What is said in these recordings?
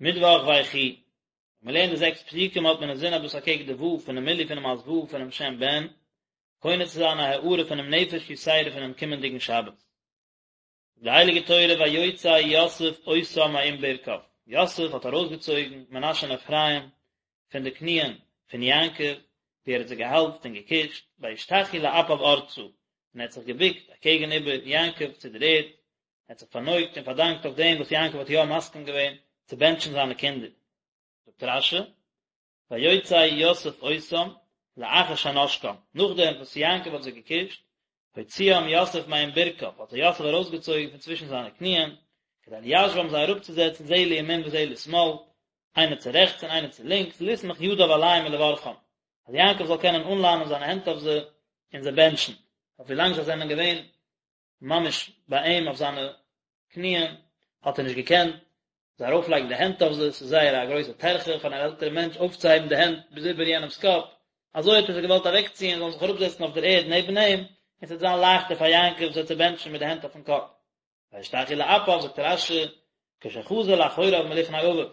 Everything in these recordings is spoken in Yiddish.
מיטוואך ויחי, ווען מען לערנט די זעקס פסוקים האט מען אינזין אז דאס אקעגן די ו' פונעם מילוי פונעם אות ו' פונעם שם בן, קונה צו זיין א הארה פונעם נפש יתירה פונעם קומענדיגן שבת. די הייליגע תורה ויוצא יוסף אותם מעם ברכיו, יוסף האט ארויסגעצויגן מנשה און אפרים פון די קניען פון יעקב, ווי ער האט זיי געהאלזט און געקושט, וישתחו לאפיו ארצה, און ער האט זיך געבוקט אקעגן איבער יעקב צו דער ערד, ער האט זיך פארנויגט און פארדאנקט אויף דעם וואס יעקב האט יא מסכים געווען צו בענטשן זיינע קינדער. זאגט רש"י, ויוצא יוסף אותם לאחר שנשקם, נאכדעם וואס יעקב האט זיי געקושט, הוציאם יוסף מעם ברכיו, האט זיי יוסף ארויסגעצויגן פון צווישן זיינע קניען, כדי ליישבם זיי אראפצוזעצן זה לימין וזה לשמאל, איינער צו רעכטס און איינער צו לינקס, לסמוך ידיו עליהם ולברכם, אז יעקב זאל קענען אנלאנען זיינע הענט אויף זיי און זיי בענטשן, אויף ווילאנג זיי זענען געווען ממש ביי אים אויף זיינע קניען, האט ער נישט געקענט זיי ארויפלייגן די הענט אויף זיי, ס'איז זייער א גרויסע טרחה פאר אן עלטערע מענטש אויפצוהייבן די הענט ביז איבער יענעמ'ס קאפ, אזוי האט ער זיי געוואלט אוועקציען זאלן זיך אראפזעצן אויף דער ערד נעבן אים, און ס'וועט זיין לייכטער פאר יעקב זיי צו בענטשן מיט די הענט אויפן קאפ. וישתחו לאפיו, זאגט רש"י, כשחזר לאחוריו מלפני אביו, ווען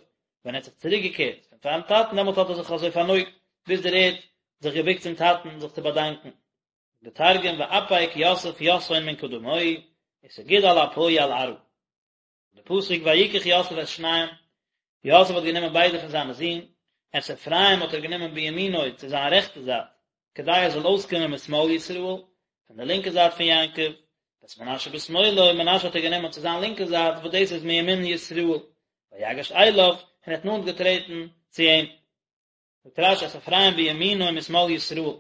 ער האט זיך צוריקגעקערט פון פארן טאטן דעמאלט האט ער זיך אזוי פארנויגט ביז דער ערד, זיך געבוקט צום טאטן זיך צו באדאנקען. די תרגום ואפיק יוסף יתהון מן קדמוהי, וסגיד על אפוהי על ארעא. די פסוק ויקח יוסף את שניהם, יוסף האט גענומען ביידע פון זיינע זין, את אפרים האט ער גענומען בימינו צו זיין רעכטע זייט, כדי ער זאל אויסקומען משמאל ישראל, פון די לינקע זייט פון יעקב, ואת מנשה בשמאלו, מנשה האט ער גענומען צו זיין לינקע זייט, וואס דאס איז מימין ישראל, ויגש אליו, און ער האט נאנט געטרעטן צו אים. זאגט רש"י את אפרים בימינו משמאל ישראל.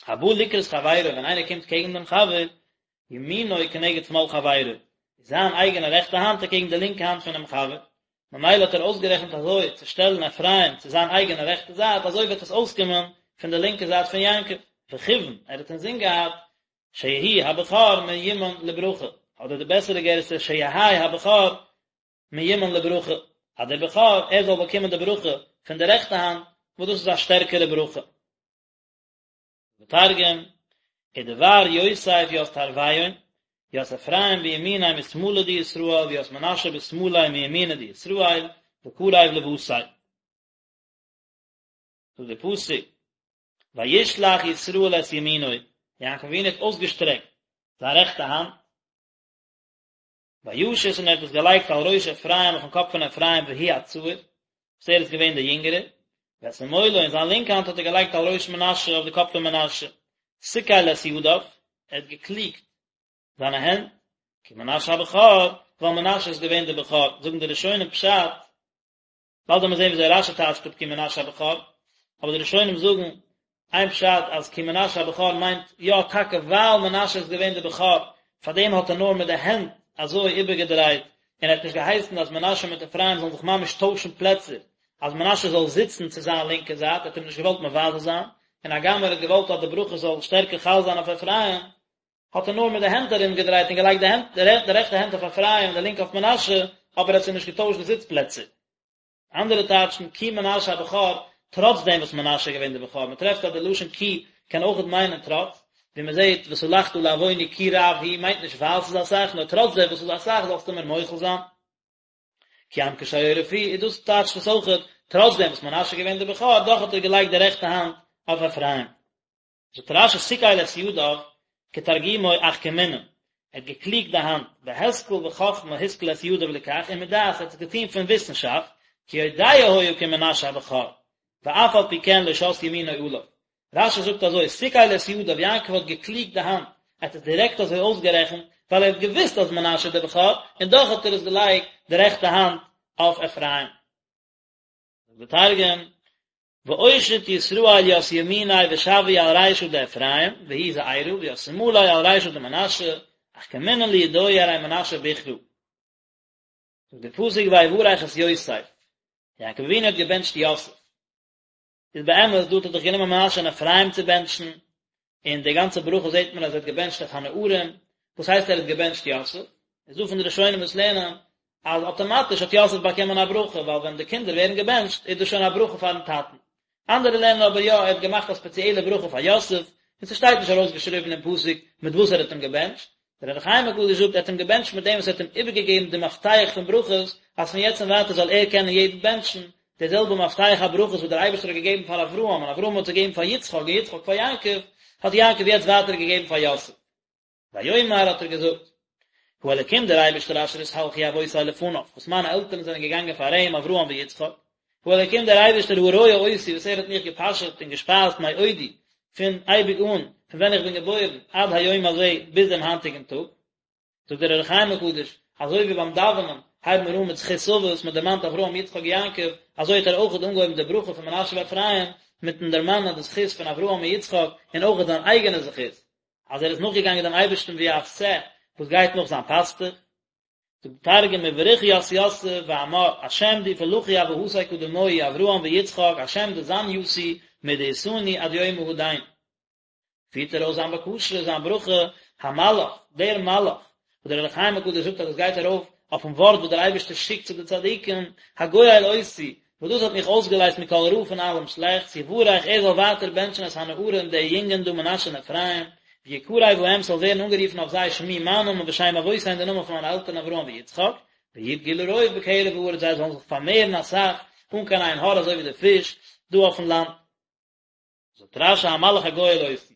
הבא לקראת חברו, ווען איינער קומט קעגן דעם חבר, ימינו כנגד שמאל חברו, איז זיין אייגענע רעכטע האנט אקעגן די לינקע האנט פונעם חבר, ממילא האט ער אויסגערעכנט אזוי צו שטעלן אפרים צו זיין אייגענע רעכטע זייט, אזוי וועט עס אויסקומען פון די לינקע זייט פון יעקב, וכיוון ער האט אינזין געהאט שיהי' הבכור מיומן לברכה, אדער די בעסערע גירסא שיהא הבכור מיומן לברכה, אז דער בכור ער זאל באקומען די ברכה פון די רעכטע האנט, וואס דאס איז א שטערקערע ברכה. ותרגום, ודבר יוסף ית תרויין, ית אפרים בימיניה משמאלא דישראל וית מנשה בשמאליה מימינא דישראל, וקריב לבתיה. זאגט דער פסוק, וישלח ישראל את ימינו, יעקב אבינו האט אויסגעשטרעקט זיין רעכטע האנט, וישת און ער האט עס געלייגט על ראש אפרים אויפן קאפ פון אפרים והוא הצעיר, וואס ער איז געווען דער יונגערער, ואת שמאלו און זיין לינקע האנט האט ער געלייגט על ראש מנשה אויף די קאפ פון מנשה, שכל את ידיו, ער האט געקליגט זיינע הענט, כי מנשה הבכור, ווייל מנשה איז געווען דער בכור, זאגן די ראשונים פשט, באלד וועט מען זען וויאזוי רש"י טייטשט אפ כי מנשה הבכור, אבער די ראשונים זאגן איין פשט אז כי מנשה הבכור מיינט יא טאקע ווייל מנשה איז געווען די בכור פארדעם האט ער נאר מיט די הענט אזוי איבערגעדרייט און ער האט נישט געהייסן אז מנשה מיט אפרים זאלן זיך ממש טוישן פלעצער אז מנשה זאל זיצן צו זיין לינקע זייט ער האט אים נישט געוואלט מבזה זיין און הגם ער האט געוואלט אז די ברכה זאל שטערקער חל זיין אויף אפרים האט ער נאר מיט די הענט ארומגעדרייט און געלייגט די הענט די רעכטע הענט אויף אפרים און די לינקע אויף מנשה, אבער ער האט זיי נישט געטוישט די זיץ פלעצער. אנדערע טייטשן כי מנשה הבכור, טראץ דעם וואס מנשה איז געווען דער בכור, מען טרעפט אז די לשון כי קען אויכעט מיינען טראץ, ווי מען זעט וסלחת לעווני כי רב הוא מיינט נישט ווייל ס'איז אסאך, נאר טראץ דעם וואס ס'איז אסאך זאלסטו מיר מוחל זיין. כי עם קשה עורף הוא, איז דאס טייטשט עס אויכעט, טראץ דעם וואס מנשה איז געווען דער בכור, דאך האט ער געלייגט די רעכטע האנט אויף אפרים. זאגט רש"י שכל את ידיו כתרגומו אחכמינן, ער האט געקליגט די האנט, בהשכל וחכמה השכיל את ידיו לכך, ומדעת ער האט עס געטון פון וויסנשאפט, כי יודע היה כי מנשה הבכור, ואף על פי כן לא שת ימינו עליו. רש"י זאגט אזוי, שכל את ידיו, יעקב האט געקליגט די האנט, ער האט עס דירעקט אזוי אויסגערעכנט, ווייל ער האט געוואוסט אז מנשה איז דער בכור, און דאך האט ער עס געלייגט די רעכטע האנט אויף אפרים. זאגט דער תרגום, ואושיט ישראל ית ימיניה ושוי על רישא דאפרים והוא זעירא וית שמאליה על רישא דמנשה אחכמינן לידוהי ארי מנשה בוכרא. זאגט דער פסוק ויברך את יוסף, יעקב אבינו האט געבענטשט יוסף, איז באמת דא האט ער דאך גענומען מנשה און אפרים צו בענטשן, און די גאנצע ברכה זעט מען אז ער האט געבענטשט את הנערים, וואס הייסט ער האט געבענטשט יוסף? איז דא פון די ראשונים וואס לערנען אז אטאמאטיש האט יוסף באקומען א ברכה, ווייל ווען די קינדער ווערן געבענטשט איז דאס שוין א ברכה פארן טאטן. אנדערע לערנען אבער יא, ער האט געמאכט א ספעציעלע ברכה פאר יוסף, און ס'שטייט נישט ארויסגעשריבן אין פסוק מיט וואס ער האט אים געבענטשט. דער אור החיים הקדוש זאגט ער האט אים געבענטשט מיט דעם וואס ער האט אים איבערגעגעבן די מפתח פון ברכות, אז פון יעצט און ווייטער זאל ער קענען יעדן בענטשן, די זעלבע מפתח הברכות וואס דער אייבערשטער האט געגעבן פאר אברהם, און אברהם האט געגעבן פאר יצחק, און יצחק פאר יעקב, האט יעקב יעצט ווייטער געגעבן פאר יוסף. ויאמר האט ער געזאגט, האלקים דער אייבערשטער אשר התהלכו אבותי לפניו, וואס מיינע עלטערן זענען געגאנגען פאר אים, אברהם ויצחק, האלקים דער אייבערשטער הרועה אותי וואס ער האט מיך געפאשעט און געשפייזט מעודי, פון אייביג אן, פון ווען איך בין געבוירן, עד היום הזה, ביז דעם היינטיגן טאג. זאגט דער אור החיים הקדוש, אזוי ווי ביים דאווענען הייבן מיר אן מיט זכות אבות, מען דערמאנט אברהם יצחק יעקב, אזוי האט ער אויך אנגעהויבן די ברכה פון מנשה ואפרים, מיטן דערמאנען די זכות פון אברהם און יצחק, און אויך זיין אייגענע זכות, אז ער איז נאכגעגאנגען דעם אייבערשטן ווי א שה וואס גייט נאך זיין פאסטוך. זאגט דער תרגום ובריך ית יוסף ואמר, השם די פלחו אבהתי קדמוהי אברהם ויצחק השם דזן יתי מדאתני עד יומא הדין. פירט ער אויס זיין בקשה, זיין ברכה, המלאך, דער מלאך, וואס דער אור החיים הקדוש זאגט אז עס גייט ארויף אויפן ווארט וואס דער אייבערשטער שיקט צו די צדיקים, הגואל אותי, וואס דאס האט מיך אויסגעלייזט מכל רע פון אלעם שלעכטס, יברך, ער זאל ווייטער בענטשן את הנערים, די יונגען דא מנשה און אפרים, ויקרא בהם ס'זאל ווערן אנגערופן אויף זיי שמי מיין נאמען ושם אבותי און די נאמען פון מיינע עלטערן אברהם ויצחק, וידגו לרוב בקרב הארץ זיי זאלן זיך פארמערן אסאך, אן קיין עין הרע אזוי ווי די פיש דא אויפן לאנד. זאגט רש"י המלאך הגואל אותי.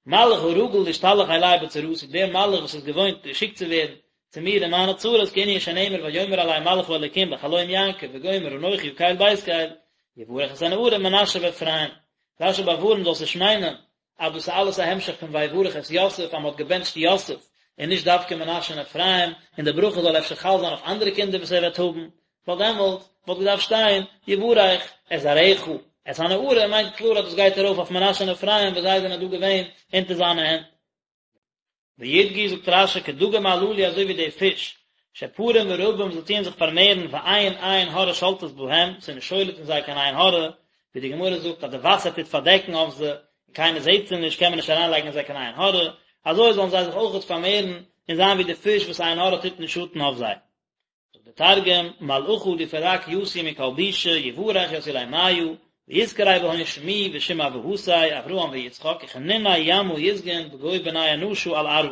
מלאך הרגיל להשתלח אלי בצרתי, דער מלאך וואס איז געוואוינט געשיקט צו ווערן צו מיר אין מיינע צרות, כענין שנאמר ויאמר אלי מלאך האלוקים בחלום יעקב וגומר אנכי הקל בית קל, יברך את הנערים מנשה ואפרים. רש"י באווארנט זאלסט נישט מיינען אז דאס איז אלעס א המשך פון ויברך את יוסף אז מען האט געבענטשט יוסף און נישט דווקא מנשה און אפרים, און די ברכה זאל אפשר חל זיין אויף אנדערע קינדער וואס ער וועט האבן, ווייל דעמאלט וואלט געדארפט שטיין יברך את זרעך, את הנערים מיינט קלאר אז דאס גייט ארויף אויף מנשה און אפרים וואס זיי זענען דא געווען אונטער זיינע הענט. וידגו זאגט רש"י כדגים הללו אזוי ווי די פיש, שפרים ורבים זיי טוען זיך פארמערן ואין עין הרע שולטת בהם, ס'איז נישט שולט אין זיי קיין עין הרע, ווי די גמרא זאגט אז די וואסער טוט פארדעקן אויף זיי, און קיינער זעט זיי נישט קען מען נישט אריינלייגן אין זיי קיין עין הרע, אזוי זאלן זיי זיך אויכעט פארמערן און זיין ווי די פיש וואס עין הרע טוט נישט שאטן אויף זיי. זאגט דער תרגום, מלאכא די פרק יתי מכל בישא יברך ית עולימיא, ויתקרי בהון שמי ושם אבהתי אברהם ויצחק וכנוני ימא יסגון בגו בני אנשא על ארעא.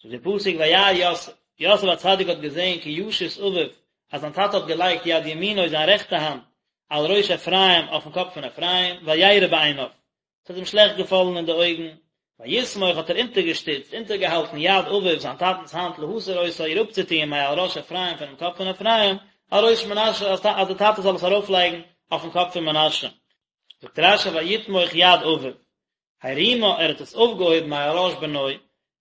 זאגט דער פסוק וירא יוסף, יוסף הצדיק האט געזען כי ישית אביו, אז זיין טאטע האט געלייגט יד ימינו זיין רעכטע האנט על ראש אפרים אויפן קאפ פון אפרים, וירע בעיניו, ס'האט אים שלעכט געפאלן אין די אויגן, ויסמוך האט ער אונטערגעשטיצט, אונטערגעהאלטן יד אביו זיין טאטנ'ס האנט להסיר אותה איר אפצוטוען מעל ראש אפרים פונעם קאפ פון אפרים, על ראש מנשה אז דער טאטע זאל עס ארויפלייגן אויפן קאפ פון מנשה. זאגט רש"י ויתמוך יד אביו, הרימה ער האט עס אויפגעהויבן מעל ראש בנו,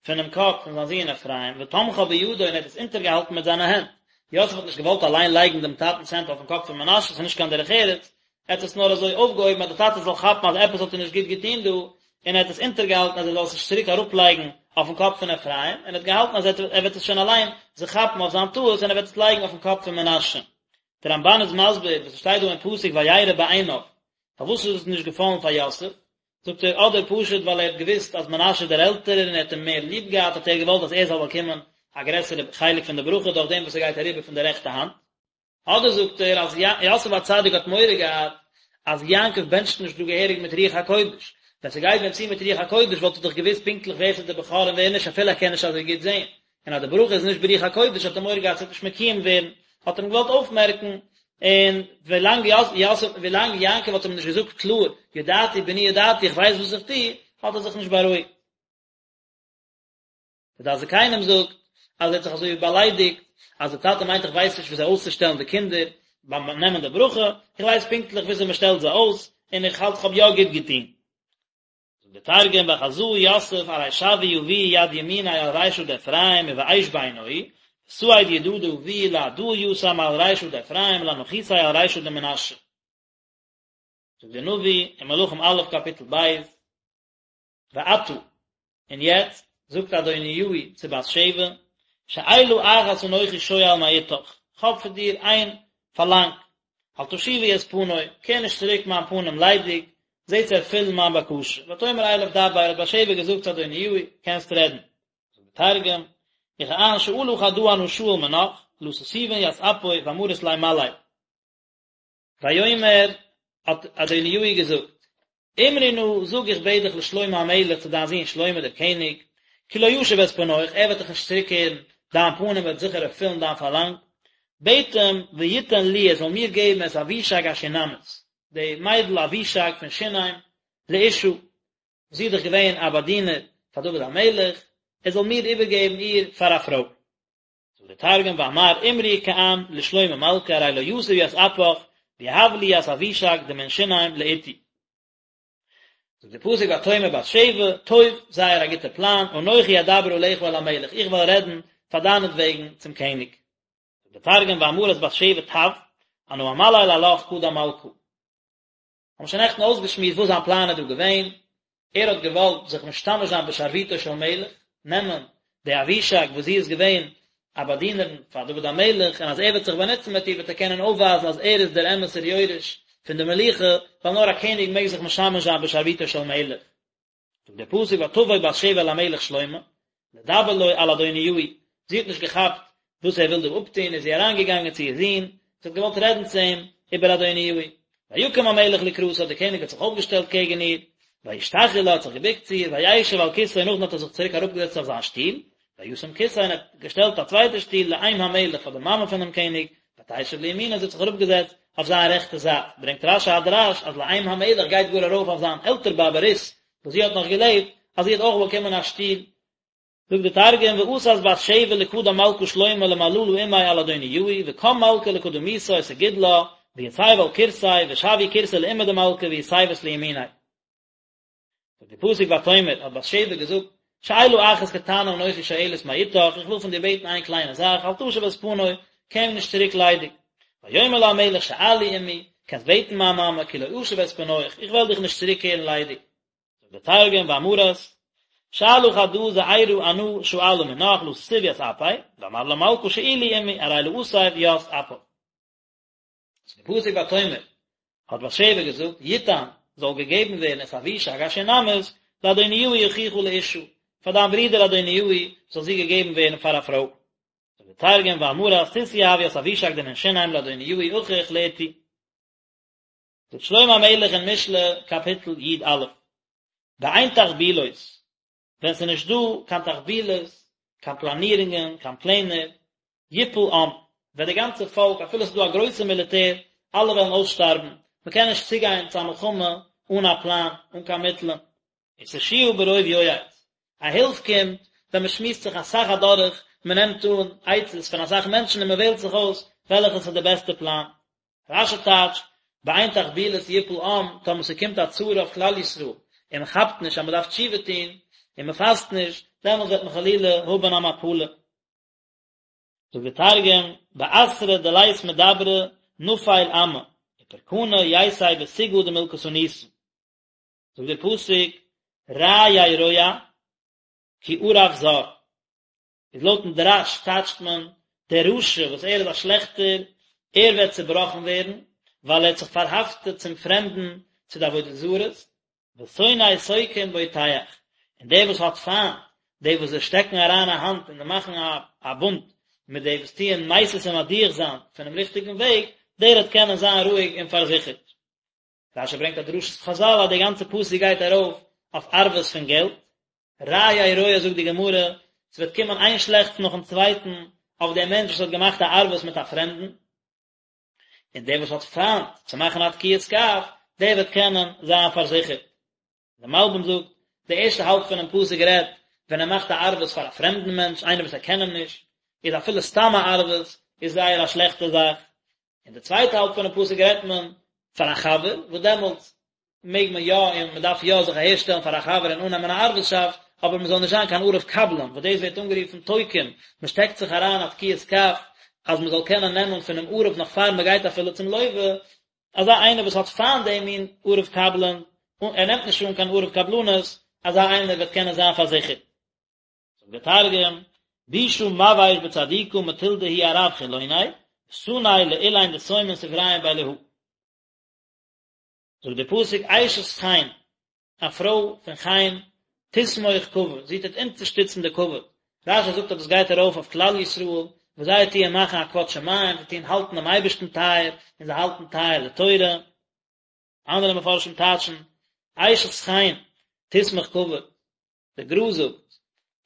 פונעם קאפ פון זיין זון אפרים, ותמכה בידו און ער האט עס אונטערגעהאלטן מיט זיינע הענט. יוסף האט נישט געוואלט אליין לייגן דעם טאטנ'ס הענט אויפן קאפ פון מנשה, ס'איז נישט קיין דרך ארץ, ער האט עס נאר אזוי אויפגעהויבן אז דער טאטע זאל כאפן אז עפעס האט ער נישט גוט געטון דא, און ער האט עס אונטערגעהאלטן אז ער זאל עס נישט צוריק אראפלייגן אויפן קאפ פון אפרים, און ער האט געהאלטן אז ער וועט עס שוין אליין זיך כאפן אויף זיין טעות און ער וועט עס לייגן אויפן קאפ פון מנשה. דער רמב"ן איז מסביר וואס עס שטייט דא אין פסוק וירע בעיניו, פארוואס איז עס נישט געפאלן פאר יוסף, זאגט ער, אדער פשוט ווייל ער האט געוואוסט אז מנשה איז דער עלטערער און ער האט אים מער ליב געהאט האט ער געוואלט אז ער זאל באקומען א גרעסערע חלק פון די ברכה דורך דעם וואס ער גייט אריבער פון די רעכטע האנט. אדער זאגט ער אז יוסף הצדיק האט מורא געהאט אז יעקב בענטשט נישט דא געהעריג מיט רוח הקודש, ווען ס'גייט ווען צו מיט רוח הקודש וואלט ער דאך געוואוסט פונקטליך ווער ס'איז דער בכור און ווער נישט אפילו ער קען נישט אזוי גוט זען, און אז די ברכה איז נישט ברוח הקודש האט ער מורא געהאט ס'וועט נישט מקוים ווערן, האט ער אים געוואלט אויפמערקן, און ווילאנג יוסף ווילאנג יעקב האט אים נישט געזאגט קלאר ידעתי בני ידעתי איך ווייס וואס איך טו, האט ער זיך נישט בארואיגט. דער דעת זקנים זאגט אז ער האט זיך אזוי ווי באליידיגט אז דער טאטע מיינט איך ווייס נישט וויאזוי אויסצושטעלן די קינדער ביים נעמען די ברכה, איך ווייס פונקטליך וויאזוי מען שטעלט זיי אויס, און איך האלט איך האב יא גוט געטון. זאגט דער תרגום וחזא יוסף ארי שווי אבוהי יד ימיניה על רישא דאפרים ובאיש בעינוהי, וסעיד ידא דאבוהי להדא יתא מעל רישא דאפרים לאנחותיה על רישא דמנשה. זאגט דער נביא אין מלכים א' קאפיטל ב', ועתה, און יעצט, זאגט אדוניהו צו בת שבע, שאלה אחת אנכי שואל מאתך, כ'האב פון דיר איין פארלאנג, אל תשיבי את פני, קער נישט צוריק מיין פנים ליידיג, זע צו ערפילן מיין בקשה. ותאמר אליו דבר, האט בת שבע געזאגט צו אדוניהו, קענסט רעדן. זאגט דער תרגום, וכען שאלא חדא אנא שאיל מנך, לא תסובין ית אפי ואמרית ליה מלי. ויאמר, האט אדוניהו געזאגט, אמרי נא, זאג איך בעט דיך לשלמה המלך צו דיין זון שלמה דער קעניג, כי לא ישיב את פניך, ער וועט דיך נישט צוריקקערן דיין פנים וועט זיכער ערפילן דיין פארלאנג. בעט אים, ויתן לי, ער זאל מיר געבן את אבישג השונמית, די מיידל אבישג פון שונם, לאשה, זי איז דאך געווען א באדינער פאר דוד המלך, ער זאל מיר איבערגעבן איר פאר א פרוי. זאגט דער תרגום, ואמר אמרי כען לשלמה מלכא ארי לא יתיב ית אפך ויהב לי ית אבישג דמן שונם לאתתי. זאגט דער פסוק ותאמר בת שבע, טוב, זייער א גוטע פלאן, אנכי אדבר עליך אל המלך, איך וועל רעדן פאר דיינעטוועגן צום קעניג. זאגט דער תרגום ואמרת בת שבע טב, אנא אמליל עלך קדם מלכא. האבן שוין נעכטן אויסגעשמועסט וואס זיין פלאן איז דא געווען, ער האט געוואלט זיך משתמש זיין בשרביטו של מלך, נעמען די אבישג וואס זי איז געווען א באדינערין פאר דוד המלך, און אז ער וועט זיך באנוצן מיט איר וועט ער קענען אויפווייזן אז ער איז דער אמת'ער יורש פון די מלוכה, ווייל נאר א קעניג מעג זיך משמש זיין בשרביטו של מלך. זאגט דער פסוק ותבא בת שבע אל המלך שלמה לדבר לו על אדוניהו, זי האט נישט געכאפט וואס ער וויל דא אפטון, איז זי אריינגעגאנגען צו איר זון, זי האט געוואלט רעדן צו אים איבער אדוניהו. ויקם המלך לקראתה, דער קעניג האט זיך אויפגעשטעלט קעגן איר, וישתחו לה, האט זיך געבוקט צו איר, וישב על כסאו, נאכדעם האט ער זיך צוריק אראפגעזעצט אויף זיין שטול, וישם כסא, און ער האט געשטעלט א צווייטע שטול לאם המלך פאר די מאמע פונעם קעניג, ותשב לימינו, זי האט זיך אראפגעזעצט אויף זיין רעכטע זייט, ברענגט רש"י א דרש אז לאם המלך גייט גאר ארויף אויף זיין עלטער באבע רות, וואס זי האט נאך געלעבט, אז זי האט אויך באקומען א שטול. זאגט די תרגום, ואתת בת שבע לקדם מלכא שלמה למללא עמיה על אדוניהו, וקם מלכא לקדמיתא וסגיד לה, ויתיב על כורסיה, ושויאו כורסא לאמא דמלכא ויתיבת לימיניה. זאגט די פסוק ותאמר, האט בת שבע געזאגט, שאלה אחת קטנה אנכי שואלת מאתך, איך וויל פון דיר בעטן איין קליינע זאך, אל תשב את פני, קום נישט צוריק ליידיג. ויאמר לה המלך שאלי אמי, קענסט בעטן מיין מאמע, כי לא אשיב את פניך, איך וועל דיך נישט צוריקקערן ליידיג. זאגט דער תרגום ואמרת, שאלה חדא זעירא אנא שאלא מינך לא תתיבי ית אפי, ואמר לה מלכא שאילי אמי, ארי לא אתיב ית אפך. זאגט דער פסוק ותאמר, האט בת שבע געזאגט, יתן, זאל געגעבן ווערן את אבישג השונמית, לאדוניהו אחיך לאשה, פאר דיין ברודער אדוניהו זאל זי געגעבן ווערן פאר א פרוי. זאגט דער תרגום ואמרת תתיהב ית אבישג דמן שונם לאדוניהו אחיך לאתי. זאגט שלמה המלך אין משלי קאפיטל י"א, באין תחבולות, ווען ס'איז נישט דא קיין תחבולות, קיין פלאנירונגען, קיין פלענער, יפול עם, וועט די גאנצע פאלק, אפילו ס'איז דא א גרויסע מיליטער, אלע וועלן אויסשטארבן, מ'קען נישט צוגיין צו א מלחמה אן א פלאן, אן קיין מיטלען. ותושיה ברוב יועץ, א הילף קומט ווען מ'שמועסט זיך אסאך אדורך, מ'נעמט אן עצות פון אסאך מענטשן און מ'וועלט זיך אויס וועלכעס איז די בעסטע פלאן. רש"י טייטשט, באין תחבולות יפול עם, טאמער ס'קומט א צרה אויף כלל ישראל, און מ'כאפט נישט אז מ'דארף תשובה טון, און מ'פאסט נישט, דעמאלס וועט מען חלילה האבן א מפלה. זאגט דער תרגום, באתרא דלית מדברא נפיל עמא, ופרקנא ייתי בסוגעא דמלקתוניתא. זאגט דער פסוק, רע ירוע כי ערב זר. איז לויטן דרש טייטשט מען, דער רשע וואס ער איז א שלעכטער, ער וועט צעבראכן ווערן, ווייל ער האט זיך פארהאפטעט צום פרעמדן, צו די עבודה זרות, ושונא תוקעים בוטח, און דער וואס האט פיינט די וואס זיי שטעקן אריין א האנט און זיי מאכן א בונד מיט די וואס טוען מסית און מדיח זיין פונעם ריכטיגן וועג, דער וועט קענען זיין רואיג און פארזיכערט. רש"י ברענגט א דרשת חז"ל אז די גאנצע פסוק גייט ארויף אויף ערבות פון געלט. רע ירוע זאגט די גמרא, ס'וועט קומען איין שלעכטס נאכן צווייטן אויף דעם מענטש וואס האט געמאכט א ערבות מיט א פרעמדן. און דער וואס האט פיינט צו מאכן א תקיעת כף, דער וועט קענען זיין פארזיכערט. דער מלבי"ם זאגט, די ערשטע האלב פונעם פסוק רעדט ווען ער מאכט א ערבות פאר א פרעמדן מענטש, איינער וואס ער קען אים נישט, איז אפילו סתם א ערבות איז זייער א שלעכטע זאך, און די צווייטע האלב פונעם פסוק רעדט מען פאר א חבר, וואס דעמאלטס מעג מען יא און מען דארף יא זיך אהערשטעלן פאר א חבר און אננעמען א ערבות'שאפט, אבער מען זאל נישט זיין קיין ערב קבלן, וואס דאס ווערט אנגערופן תוקעים, מען שטעקט זיך אריין א תקיעת כף אז מען זאל קענען נעמען פונעם ערב נאך פאר מען גייט אפילו צום לווה, אזא איינער וואס האט פיינט דעם מין ערב קבלן, ער נעמט נישט אן קיין ערב קבלנות, אזא איינער וועט קענען זיין פארזיכערט. זאגט דער תרגום, בישא מבאיש בצדיקא מטול דהוא ערב חילוני, וסני לאלין דסיימין סבריהון באלהא. זאגט דער פסוק אשת חן, א פרוי פון חן, תסמוך כבוד, זי טוט אונטערשטיצן די כבוד, רש"י זאגט אז דאס גייט ארויף אויף כלל ישראל, וואס זיי טוען מאכן א כבוד שמים, זיי טוען האלטן דעם אייבערשטן טייער, און זיי האלטן טייער די תורה. אנדערע מפרשים טייטשן, אשת חן, תסמוך כבוד, דער גר"א זאגט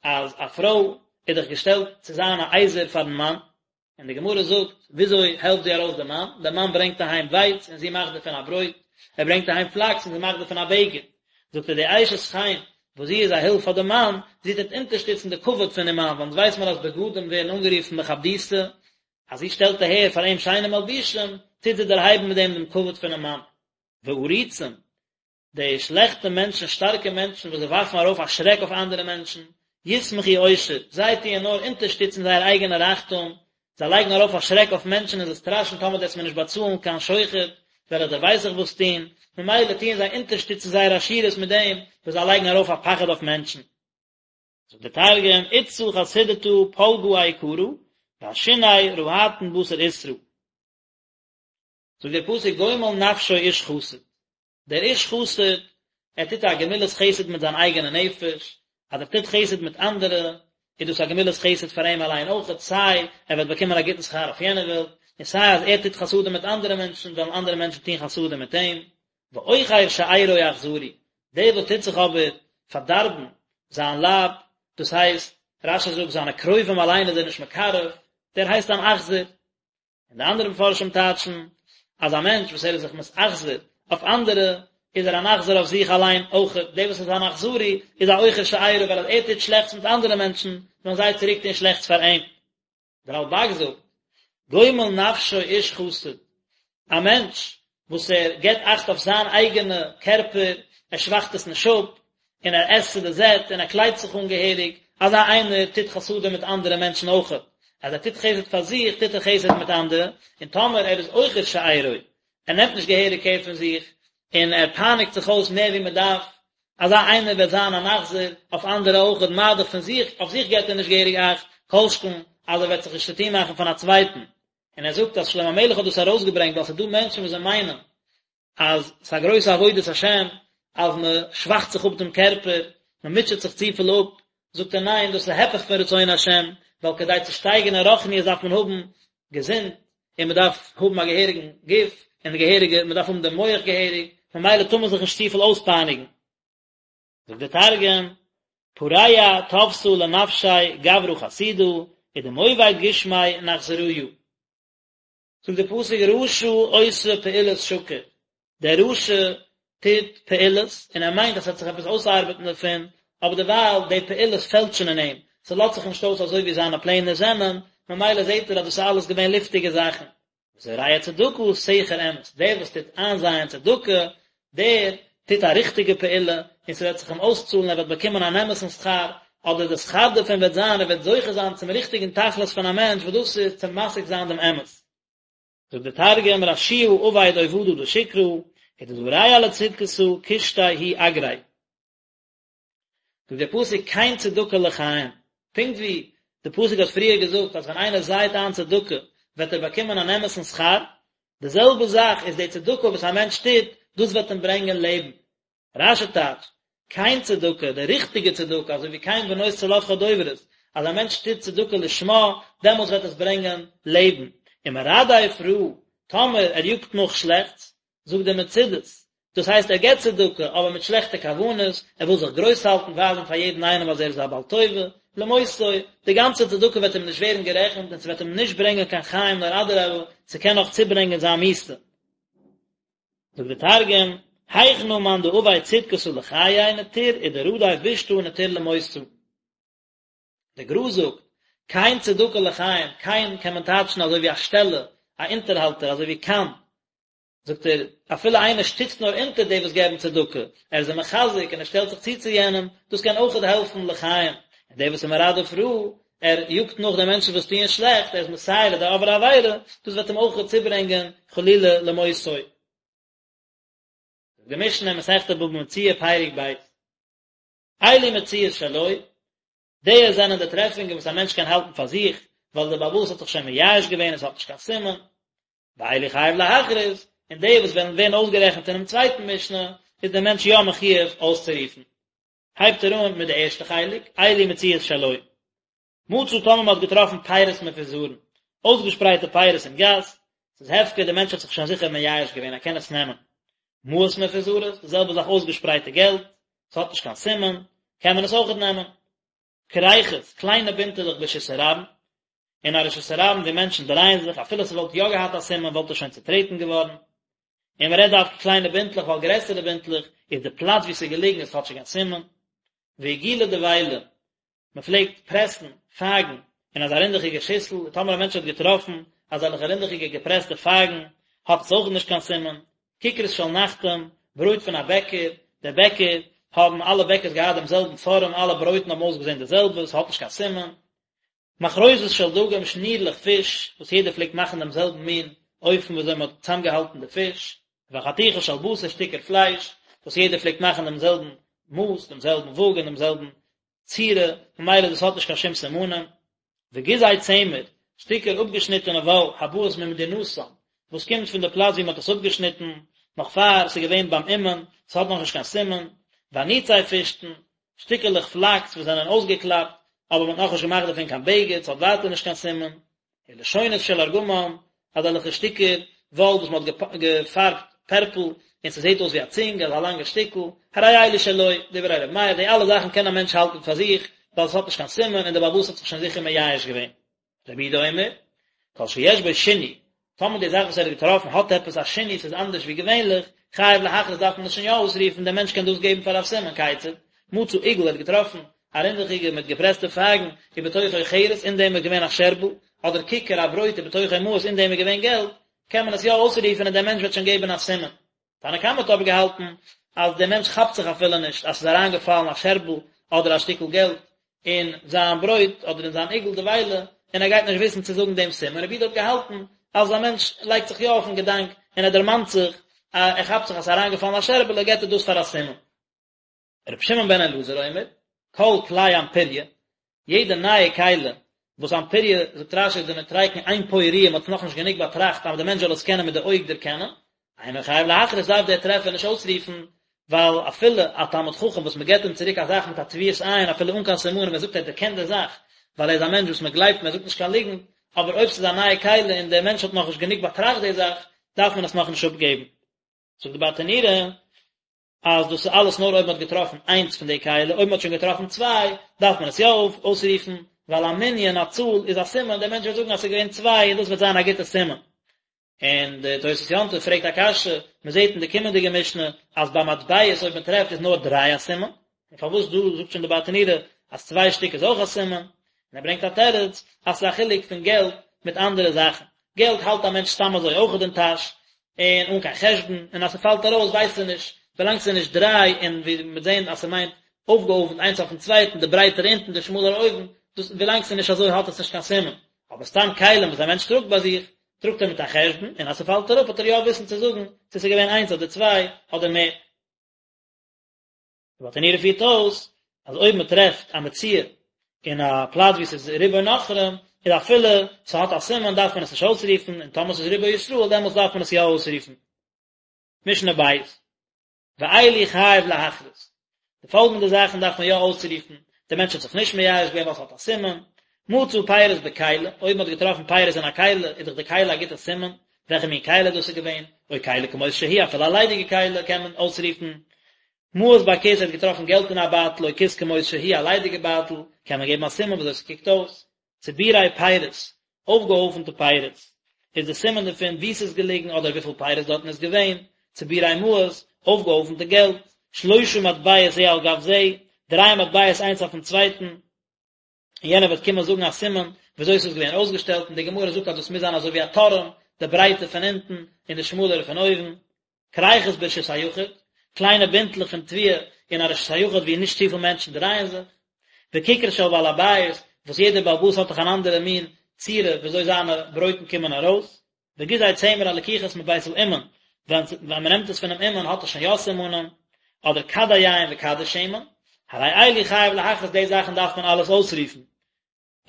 אז א פרוי איז דאך געשטעלט צו זיין א עזר פארן מאן. און די גמרא זאגט, וויאזוי העלפט זי ארויס די מאן? דער מאן ברענגט אהיים ווייץ און זי מאכט דערפון א ברויט, ער ברענגט אהיים פלאקס און זי מאכט דערפון א בגד. זאגט ער, די אשת חן, וואס זי איז א הילף פאר די מאן, זי טוט אונטערשטיצן די כבוד פונעם מאן, ווייל אונז ווייס מיר אז בגדים ווערן אנגערופן מכבדותא, אז זי שטעלט אהער פאר אים שיינע מלבושים, טוט זי דערהייבן מיט דעם דעם כבוד פונעם מאן. ועריצים, די שלעכטע מענטשן, שטארקע מענטשן וואס זיי ווארפן ארויף א שרעק אויף אנדערע מענטשן, ישמחו עושר, זיי טוען נאר אונטערשטיצן זייער אייגענע רייכטום, זיי לייגן ארויף א שרעק אויף מענטשן און זיי סטראשען טאמער דו וועסט מיר נישט באצאלן קיין שוחד, וועל איך דיר ווייס איך וואס טון, ממילא טוען זיי אונטערשטיצן זייער עשירות מיט דעם וואס זיי לייגן ארויף א פחד אויף מענטשן. זאגט דער תרגום, אתתא חסידתא פלגא איקרא, ועשיני רהטן בתר עותרא. זאגט דער פסוק גומל נפשו איש חסד, דער איש חסד, ער טוט א גמילת חסד מיט זיין אייגענע נפש, אז ער טוט חסד מיט אנדערע, איז דאס א גמילת חסד פאר אים אליין אויכעט, סיי ער וועט באקומען א גוטן שכר אויף יענער וועלט, און סיי אז ער טוט חסדים מיט אנדערע מענטשן, וועלן אנדערע מענטשן טון חסדים מיט אים. ועוכר שארו אכזרי, דער וואס טוט זיך אבער פארדארבן זיין לייב, דאס הייסט, רש"י זאגט, זיינע קרובים אליין איז ער נישט מקרב, דער הייסט אן אכזר. און די אנדערע מפרשים טייטשן אז א מענטש וואס ער איז זיך מתאכזר אויף אנדערע איז ער אן אכזר אויף זיך אליין אויך, דער וואס איז אן אכזרי איז א עוכר שארו ווייל אז ער טוט שלעכטס מיט אנדערע מענטשן וועלן זיי צוריק טון שלעכטס פאר אים. דער רלב"ג זאגט, גומל נפשו איש חסד, א מענטש וואס ער געבט אכט אויף זיין אייגענע קערפער, ער שוואכט עס נישט אפ, און ער עסט צו די זעט, און ער קליידט זיך אן געהעריג, אזא איינער טוט חסדים מיט אנדערע מענטשן אויכעט. אז ער טוט חסד פאר זיך, טוט ער חסד מיט אנדערע, און טאמער ער איז עוכר שארו, ער נעמט נישט געהעריג קער פון זיך, און ער פייניגט זיך אויס מער ווי מען דארף, אזא איינער וועט זיין אן אכזר אויף אנדערע אויכעט, מה דאך פון זיך, אויף זיך געבט ער נישט געהעריג אכט, כל שכן אז ער וועט זיך נישט צוטון מאכן פון א צווייטן. און ער זאגט אז שלמה המלך האט דאס ארויסגעברענגט ווייל ס'איז דא מענטשן וואס זיי מיינען אז ס'איז א גרויסע עבודת השם אז מען שוואכט זיך אפ דעם קערפער, מען מוטשעט זיך צופיל אפ, זאגט ער ניין דאס איז היפך פון רצון השם, ווייל כדי צו שטייגן אין רוחניות דארף מען האבן געזונט, און מען דארף האבן א געהעריגן גוף, און געהעריגע, מען דארף האבן דעם מח געהעריג, ממילא טאר מען זיך נישט צופיל אויספייניגן. זאגט דער תרגום, פרע טבתא לנפשיה גברא חסידא, ודמוביד גושמיה נכזריא. זאגט דער פסוק רשע עושה פעולות שקר, דער רשע טוט פעולות און ער מיינט אז ס'וועט זיך עפעס אויסארבעטן דערפון, אבער דערווייל די פעולות פעלטשן אין אים, ס'לאזט זיך נישט אויס אזוי ווי זיינע פלענער זענען, ממילא זעט ער אז דאס איז אלעס געווען לופטיגע זאכן. וזורע צדקה סכר אמת, דער וואס טוט איינזייען צדקה, דער טוט א ריכטיגע פעולה, און ס'וועט זיך אים אויסצאלן, ער וועט באקומען אן אמת'ן שכר, אדער די שכר דערפון וועט זיין, ער וועט זוכה זיין צום ריכטיגן תכלית פון א מענטש, וואס דאס איז צו משיג זיין דעם אמת. זאגט דער תרגום, רשיעא עביד עובדא דשקרא, ודזרע לצדקתא קושטיה הוא אגריה. זאגט דער פסוק כן צדקה לחיים, פונקט ווי די פסוק האט פריער געזאגט אז ווען איינער זייט איין צדקה וועט ער באקומען אן אמת'ן שכר, די זעלבע זאך איז די צדקה וואס א מענטש טוט, דאס וועט אים ברענגען לעבן. רש"י טייטשט, כן צדקה, די ריכטיגע צדקה, אזוי ווי כן בנות צלפחד דוברות, אז א מענטש טוט צדקה לשמה, דעמאלטס וועט עס ברענגען לעבן. ומרדף רעה, טאמער ער יאגט נאך שלעכטס, זאגט דער מצודות, דאס הייסט ער געבט צדקה אבער מיט שלעכטע כוונות, ער וויל זיך גרויס האלטן, ווייזן פאר יעדן איינעם אז ער איז א בעל טובה, למותו, די גאנצע צדקה וועט אים נישט ווערן גערעכנט און ס'וועט אים נישט ברענגען קיין חיים נאר אדרבה, ס'קען נאך צוברענגען זיין מיתה. זאגט דער תרגום, היכנא מאן דעביד צדקתא לחיי נטיר ודרדיף בישתא נטיר למותא. דער גר"א זאגט, כן צדקה לחיים, כן קען מען טייטשן אזוי ווי א שטעלע, א אונטערהאלטער, אזוי ווי כן, זאגט ער, אפילו איינער שטיצט נאר אונטער די וואס געבן צדקה, ער איז זיי מחזק און ער שטעלט זיך צו צו יענעם, דאס קען אויכעט העלפן לחיים, און דער וואס איז מרדף רעה, ער יאגט נאך די מענטשן וואס טוען שלעכט, ער איז מסייע לדי עוברי עבירה, דאס וועט אים אויכעט צוברענגען חלילה למותו. זאגט די משנה אין מסכת בבא מציעא פרק ב', אלו מציאות שלו, די זענען די טרעפונגען וואס א מענטש קען האלטן פאר זיך, ווייל דער בעל הבית האט זיך שוין מייאש געווען און עס האט נישט קיין סימן, ואלו חייב להכריז, און די וואס וועלן ווערן אויסגערעכנט אינעם צווייטן משנה, איז דער מענטש יא מחויב אויסצורופן. הייבט ער אן מיט די ערשטע חלק, אלו מציאות שלו. מצא טאמער מען האט געטראפן פירות מפוזרין, אויסגעשפרייטע פירות אין גאס, ס'איז הפקר, דער מענטש האט זיך שוין זיכער מייאש געווען, ער קען עס נעמען. מעות מפוזרות, די זעלבע זאך אויסגעשפרייטע געלט, ס'האט נישט קיין סימן, קען מען עס אויכעט נעמען. כריכות, קליינע בינטעלעך ברשות הרבים. אין א רשות הרבים ווי מענטשן דרייען זיך, אפילו ס'וואלט יא געהאט א סימן וואלט עס שוין צוטרעטן געווארן. און מ'רעדט דווקא קליינע בינטלעך ווייל גרעסערע בינטלעך איז די פלאץ ווי ס'איז געליגן איז כאטשיג א סימן. ועיגולי דבילה, מ'פלעגט פרעסן פייגן אין אזא רינדעכיגע שיסל, און טאמער א מענטש האט געטראפן אזעלכע רינדעכיגע געפרעסטע פייגן האט עס אויך נישט קיין סימן. כיכרות של נחתום, ברויט פון א בעקער, דער בעקער, האבן אלע בעקערס געהאט דעם זעלבן פארעם, אלע ברויטן האבן אויסגעזען די זעלבע, ס'האט נישט קיין סימן. מחרוזות של דגים, שנירלעך פיש, וואס יעדער פלעגט מאכן דעם זעלבן מין אופן ווי אזוי מען האט צוזאמגעהאלטן די פיש, וחתיכות של בשר, שטיקער פלייש, וואס יעדער פלעגט מאכן דעם זעלבן מאס, דעם זעלבן וואג און דעם זעלבן צורה, ממילא דאס האט נישט קיין שום סימנים. וגיזי צמר, שטיקער אפגעשניטענע וואל, הבאות ממדינתן, וואס קומט פון די פלאץ ווי מען האט עס אפגעשניטן, נאך פאר ס'איז געווען ביים אומן, ס'האט נאכנישט קיין סימן. ואניצי פשתן, שטיקעלעך פלאקס וואס זענען אויסגעקלאפט, אבער מען האט נאכנישט געמאכט דערפון קיין בגד, ס'האט ווייטער נישט קיין סימן. ולשונות של ארגמן, אזעלכע שטיקער וואל וואס מען האט געפארבט פערפל, און ס'זעט אויס ווי א צונג, אזא לאנגע שטיקל, הרי אלו שלו, דברי ר' מאיר, די אלע זאכן קען א מענטש האלטן פאר זיך, ווייל עס האט נישט קיין סימן, און דער בעל הבית האט זיך שוין זיכער מייאש געווען. רבי יהודה אומר, כל שיש בו שינוי, טאמער די זאך וואס ער האט געטראפן האט עפעס א שינוי, ס'איז אנדערש ווי געווענליך, חייב להכריז דארף מען עס שוין יא אויסרופן, דער מענטש קען דאס געבן פאר א סימן, כיצד, מצא עיגול ער האט געטראפן א רינדעכיגע מיט געפרעסטע פייגן, ובתוכו חרס, אין דעם איז געווען א שערבל, אדער כיכר א ברויט ובתוכו מעות, אין דעם איז געווען געלט, קען מען עס יא אויסרופן און דער מענטש וועט שוין געבן א סימן. תנא קמא האט אבער געהאלטן אז דער מענטש כאפט זיך אפילו נישט אז ס'איז אריינגעפאלן א שערבל אדער א שטיקל געלט אין זיין ברויט אדער אין זיין עיגול דבילה, און ער גייט נישט וויסן צו זאגן דעם סימן. רבי יהודה האט געהאלטן אז א מענטש לייגט זיך יא אויפן געדאנק און ער דערמאנט זיך, ער כאפט זיך אז ס'איז אריינגעפאלן א שערבעלע, געבט ער דאס פאר א סימן. רבי שמעון בן אלעזר אומר, כל כלי אנפוריא, יעדע נייע כלי, וואס אנפוריא, זאגט רש"י איז דנוטריקון אין פה ראיה, מען האט עס נאכנישט גענוג באטראכט אז דער מענטש זאל עס קענען מיט די אויג דערקענען, אינו חייב להכריז דארף דער טרעפער נישט אויסרופן, ווייל אפילו א תלמיד חכם וואס מען געבט אים צוריק א זאך מיט א טביעת עין אפילו אן קיין סימנים ער זאגט ער דערקענט די זאך, ווייל ער איז א מענטש וואס מען גלייבט אים ער זאגט נישט קיין ליגנט, אבער אויב ס'איז א נייע כלי און דער מענטש האט נאכנישט גענוג באטראכט די זאך, דארף מען עס נאכנישט אפגעבן. זאגט די ברטנורא, אז דאס איז אלעס נאר אויב מען האט געטראפן איינס פון די כלי, אויב מען האט שוין געטראפן צוויי, דארף מען עס יא אויסרופן, ווייל א מנין, א צאל, איז א סימן, דער מענטש וועט זאגן אז עס איז געווען צוויי און דאס וועט זיין א גוטע סימן. און די תוס' יום טוב פרעגט א קשיא, מען זעט אין די קומענדיגע משנה אז ביי מטבעות אויב מען טרעפט איז נאר דריי א סימן, און פארוואס דא זאגט שוין די ברטנורא אז צוויי שטיק איז אויך א סימן, און ער ברענגט א תירוץ אז ס'איז א חילוק פון געלט מיט אנדערע זאכן, געלט האלט א מענטש סתם אזוי אויכעט אין טאש, און אן קיין חשבון, און אז ס'פאלט ארויס ווייסט ער נישט, ווילאנג ס'איז נישט דריי און ווי מ'וועט זען אז ס'מיינט אויפגעהויפנט איינס אויפן צווייטן, די ברייטערע אונטן די שמאלערע אויבן, דאס ווילאנג ס'איז נישט אזוי האט עס נישט קיין סימן, אבער סתם כלים וואס א מענטש טראגט ביי זיך, טראגט ער מיט א חשבון, און אז ס'פאלט אראפ האט ער יא וויסן צו זאגן צו ס'איז געווען איינס אדער צוויי אדער מער. די ברטנורא פירט אויס אז אויב מען טרעפט א מציאה אין א פלאץ וואו ס'איז רובו נכרים, איז אפילו ס'האט א סימן דארף מען עס נישט אויסרופן, און טאמער ס'איז רובו ישראל דעמאלטס דארף מען עס יא אויסרופן. משנה בית, ואלו חייב להכריז, די פאלגענדע זאכן דארף מען יא אויסרופן, דער מענטש האט זיך נישט מייאש געווען ווייל ס'האט א סימן, מצא פירות בכלי, אויב מ'האט געטראפן פירות אין א כלי, איז דאך די כלי א גוטע סימן, וועלכע מין כלי דאס איז געווען, או כלי כמות שהיא, אפילו א ליידיגע כלי קען מען אויסרופן, מעות בכיס, ער האט געטראפן געלט אין א בייטל, או כיס כמות שהיא, א ליידיגע בייטל, קען מען געבן א סימן וויאזוי ס'קוקט אויס. צבורי פירות, אויפגעהויפנטע פירות, איז די סימן דערפון וואו ס'איז געליגן אדער וויפיל פירות דארטן איז געווען, צבורי מעות, אויפגעהויפנטע געלט, שלושה מטבעות זה על גב זה, דריי מטבעות איינס אויפן צווייטן, און יענער וועט קומען זאגן א סימן וויאזוי ס'איז געווען אויסגעשטעלט, און די גמרא זאגט אז דאס מוז זיין אזוי ווי א טורעם, די ברייטע פון אונטן און די שמאלערע פון אויבן. כריכות ברשות היחיד, קליינע בינטלעך פון תבואה אין א רשות היחיד וואו נישט צופיל מענטשן דרייען זיך, וכיכר של בעל הבית, וואס יעדער בעל הבית האט דאך אן אנדערע מין צורה וויאזוי זיינע ברויטן קומען ארויס, וגיזי צמר הלקוחות מבית האומן, ווען ווען מען נעמט עס פונעם אומן האט עס שוין יא סימנים, אדער כדי יין וכדי שמן, הרי אלו חייב להכריז די זאכן דארף מען אלעס אויסרופן.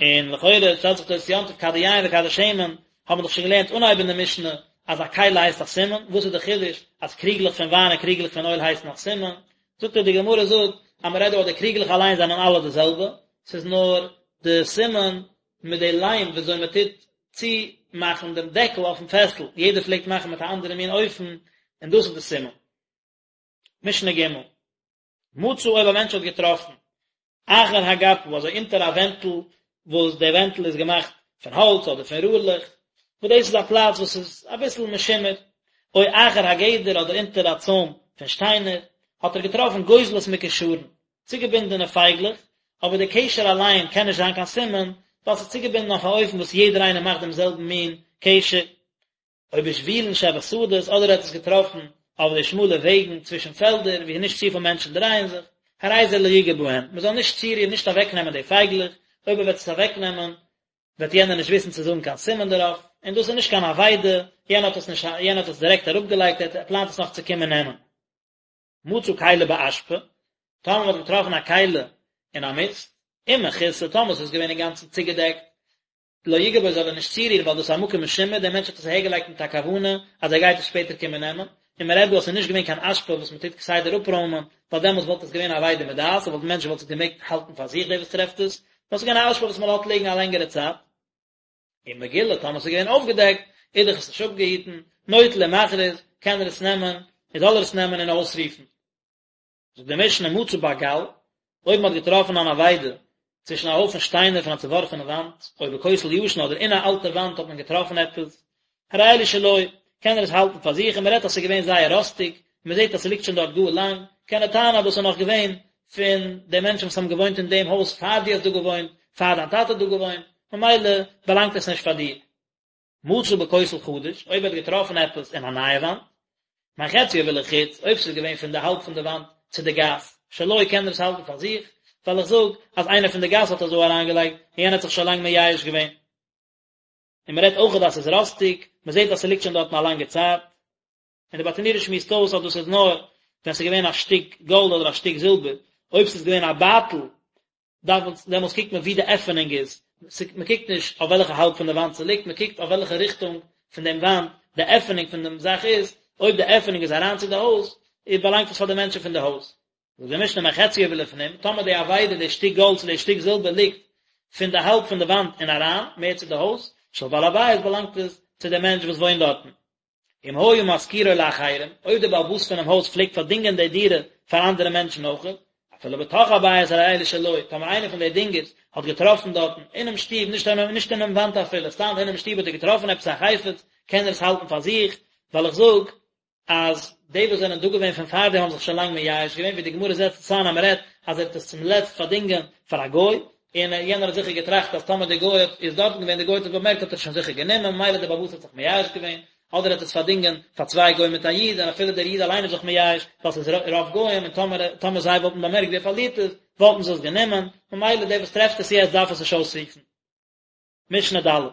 און לכאורה שטעלט זיך תוס' יום טוב כדי יין וכדי שמן, האבן מיר דאך שוין געלערנט אנהייב אין די משנה אז א כלי הייסט א סימן, וואס איז די חידוש אז קריגלעך פון וויין און קריגלעך פון אויל הייסן א סימן? זאגט ער די גמרא זאגט אז מען רעדט דא אז די קריגלעך אליין זענען אלע די זעלבע, ס'איז נאר די סימן מיט די ליים וויאזוי מען טוט צומאכן דעם דעקל אויפן פעסל, יעדער פלעגט מאכן מיט א אנדערע מין אופן, און דאס איז די סימן. משנה ג' מצא אויב א מענטש האט געטראפן אחר הגפה אזוי אונטער א ווענטל וואס די ווענטל איז געמאכט פון האלץ אדער פון רארלעך, וואס דאס איז א פלאץ וואס איז אביסל משומר, או אחר הגדר אדער אונטער א צוים פון שטיינער, האט ער געטראפן גוזלות מקושרין, צוגעבינדענע פייגלעך, אבער די קשר אליין קען נישט זיין קיין סימן, ווייל ס'איז צוגעבינדן אויף א אופן וואס יעדער איינער מאכט דעם זעלבן מין קשר. או בשבילין שבשדות, אדער ער האט עס געטראפן אויף די שמאלע וועגן צווישן פעלדער וואו נישט צופיל מענטשן דרייען זיך, הרי זה לא יגע בהם, מען זאל נישט צורירן, נישט אוועקנעמען די פייגלעך, אויב ער וועט עס אוועקנעמען וועט יענער נישט וויסן צו זאגן קיין סימן דערויף, און דאס איז נישט קיין אבידה, יענער האט עס נישט, יענער האט עס דירעקט אראפגעלייגט, ער פלאנט עס נאך צו קומען נעמען. מצא כלי באשפה, טאמער מען האט געטראפן א כלי אין א מיסט, אם מכוסה, טאמער עס איז געווען אינגאנצן צוגעדעקט, לא יגע בו זאל ער נישט צורירן ווייל דאס איז א מקום משומר, דער מענטש האט עס אהערגעלייגט מיט א כוונה אז ער גייט עס שפעטער קומען נעמען, און מען רעדט דא אז עס איז נישט געווען קיין אשפה וואס מען טוט כסדר אפרוימען, ווייל דעמאלטס וואלט עס געווען אבידה מדעת, און וואלט מענטש וואלט עס געמעגט האלטן פאר זיך דער וואס טרעפט עס, נאר עס איז געווען א אשפה וואס מען לאזט ליגן א לענגערע צייט. אם מגולה, טאמער עס איז געווען אויפגעדעקט, איז דאך עס נישט אפגעהיטן, נוטל ומכריז, קען ער עס נעמען, און זאל ער עס נעמען און אויסרופן. זאגט די משנה מצא בגל, אויב מען האט געטראפן אן אבידה צווישן א הויפן שטיינער פון א צעווארפענע וואנט, או בכותל ישן אדער אין א אלטע וואנט האט מען געטראפן עפעס, הרי אלו שלו, קען ער עס האלטן פאר זיך, און מען רעדט אז ס'איז געווען זייער ראסטיג, און מען זעט אז ס'ליגט שוין דארט גאר לאנג, קען ער טענה'ן אז דאס איז נאך געווען פון די מענטשן וואס האבן געוואוינט אין דעם הויז פאר דו האסט דא געוואוינט, פאר דיין טאטע האט דא געוואוינט, ממילא באלאנגט עס נישט פאר דיר. מצא בכותל חדש, אויב ער האט געטראפן עפעס אין א נייע וואנט, מחציו ולחוץ, אויב ס'איז געווען פון די האלב פון די וואנט צו די גאס, שלו קען ער עס האלטן פאר זיך, ווייל איך זאג אז איינער פון די גאס האט עס דא אריינגעלייגט, און יענער האט זיך שוין לאנג מייאש געווען. און מ'רעדט אויכעט אז ס'איז ראסטיג, מ'זעט אז ס'ליגט שוין דארטן א לאנגע צייט. און די ברטנורא שמועסט אויס אז דאס איז נאר ווען ס'איז געווען א שטיק גאלד אדער א שטיק זילבער, אויב ס'איז געווען א בייטל דארף מען, דעמאלטס קוקט מען ווי די עפענונג איז, מען קוקט נישט אויף וועלכע האלב פון די וואנט ס'ליגט, מען קוקט אויף וועלכע ריכטונג פון דעם וואנט די עפענונג פון דעם זאך איז, אויב די עפענונג איז אריין צו די הויז, איז באלאנגט עס פאר די מענטשן פון די הויז. זאגט די משנה מחציו ולפנים, טאמער די אבידה, די שטיק גאלד צו די שטיק זילבער ליגט פון די האלב פון די וואנט און אריין, מער צו די הויז, של בעל הבית באלאנגט עס צו דעם מענטש וואס וואוינט דארטן. אם היה משכירו לאחרים, אויב דער בעל הבית פונעם הויז פלעגט פארדינגען די דירה פאר אנדערע מענטשן אויך, אפילו בתוך הבית הרי אלו שלו, טאמער איינער פון די דינגערס האט געטראפן דארטן אינעם שטוב, נישט נישט אינעם וואנט אפילו, סתם אינעם שטוב האט ער געטראפן עפעס א חפץ, קען ער עס האלטן פאר זיך, ווייל איך זאג אז די וואס זענען דא געווען פון פאר דעם האבן זיך שוין לאנג מייאש געווען, ווי די גמרא זעצט עס איין אז מען רעדט אז ער האט עס צום לעצט פארדינגען פאר א גוי, און יענער האט זיכער געטראכט אז טאמער דער גוי האט איז דארטן געווען, דער גוי האט עס באמערקט האט ער עס שוין זיכער גענומען, ממילא דער בעל הבית האט זיך מייאש געווען, אדער האט עס פארדינגען פאר צוויי גוים מיט א איד, און אפילו דער איד אליין איז זיך מייאש, ווייל ס'איז רוב גוים, און טאמער טאמער זיי וואלטן באמערקט ווי ער פארלירט עס, וואלטן זיי עס גענומען, ממילא דער וואס טרעפט עס יעצט דארף עס נישט אויסרופן. משנה ד'.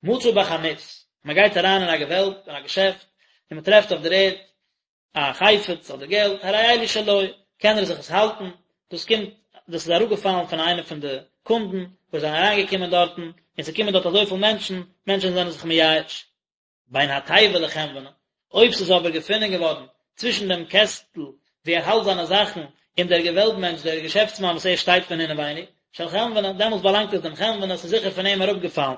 מצא בחנות, מען גייט אריין אין א געוועלב, אין א געשעפט, און מען טרעפט אויף דער ערד א חפץ אדער געלט, הרי אלו שלו, קען ער זיך עס האלטן, דאס קומט, דאס איז אראפגעפאלן פון איינע פון די קונדן וואס זענען אריינגעקומען דארטן, און ס'קומען דארט אזויפיל מענטשן, מענטשן זענען זיך מייאש. בין התיבה לחנווני, אויב ס'איז אבער געפונען געווארן צווישן דעם קעסטל וואו ער האלט זיינע זאכן און דער געוועלב מענטש, דער געשעפטסמאן וואס ער שטייט פון אינעווייניג, של חנווני, דעמאלטס באלאנגט עס דעם חנווני, ס'איז זיכער פון אים אראפגעפאלן.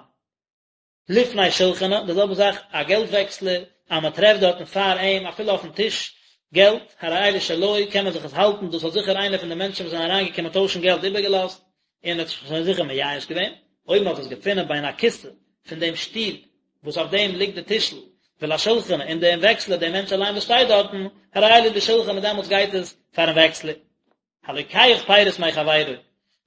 לפני שלחנו, די זעלבע זאך א געלט וועקסלער, אז מען טרעפט דארטן פאר אים, אפילו אויפן טיש, געלט, הרי אלו שלו, קען מען זיך עס האלטן, דאס האט זיכער איינער פון די מענטשן וואס זענען אריינגעקומען טוישן געלט איבערגעלאזט, און האט זיך שוין זיכער מייאש געווען, אויב מען האט עס געפונען בין הכסא פון דעם שטול וואס אויף דעם ליגט די טישל, ולשלחני, און דעם וועקסלער, דעם מענטש אליין וואס שטייט דארטן, הרי אלו לשלחני, דעמאלטס גייט עס פארן וועקסלער. הלוקח פירות מחבירו,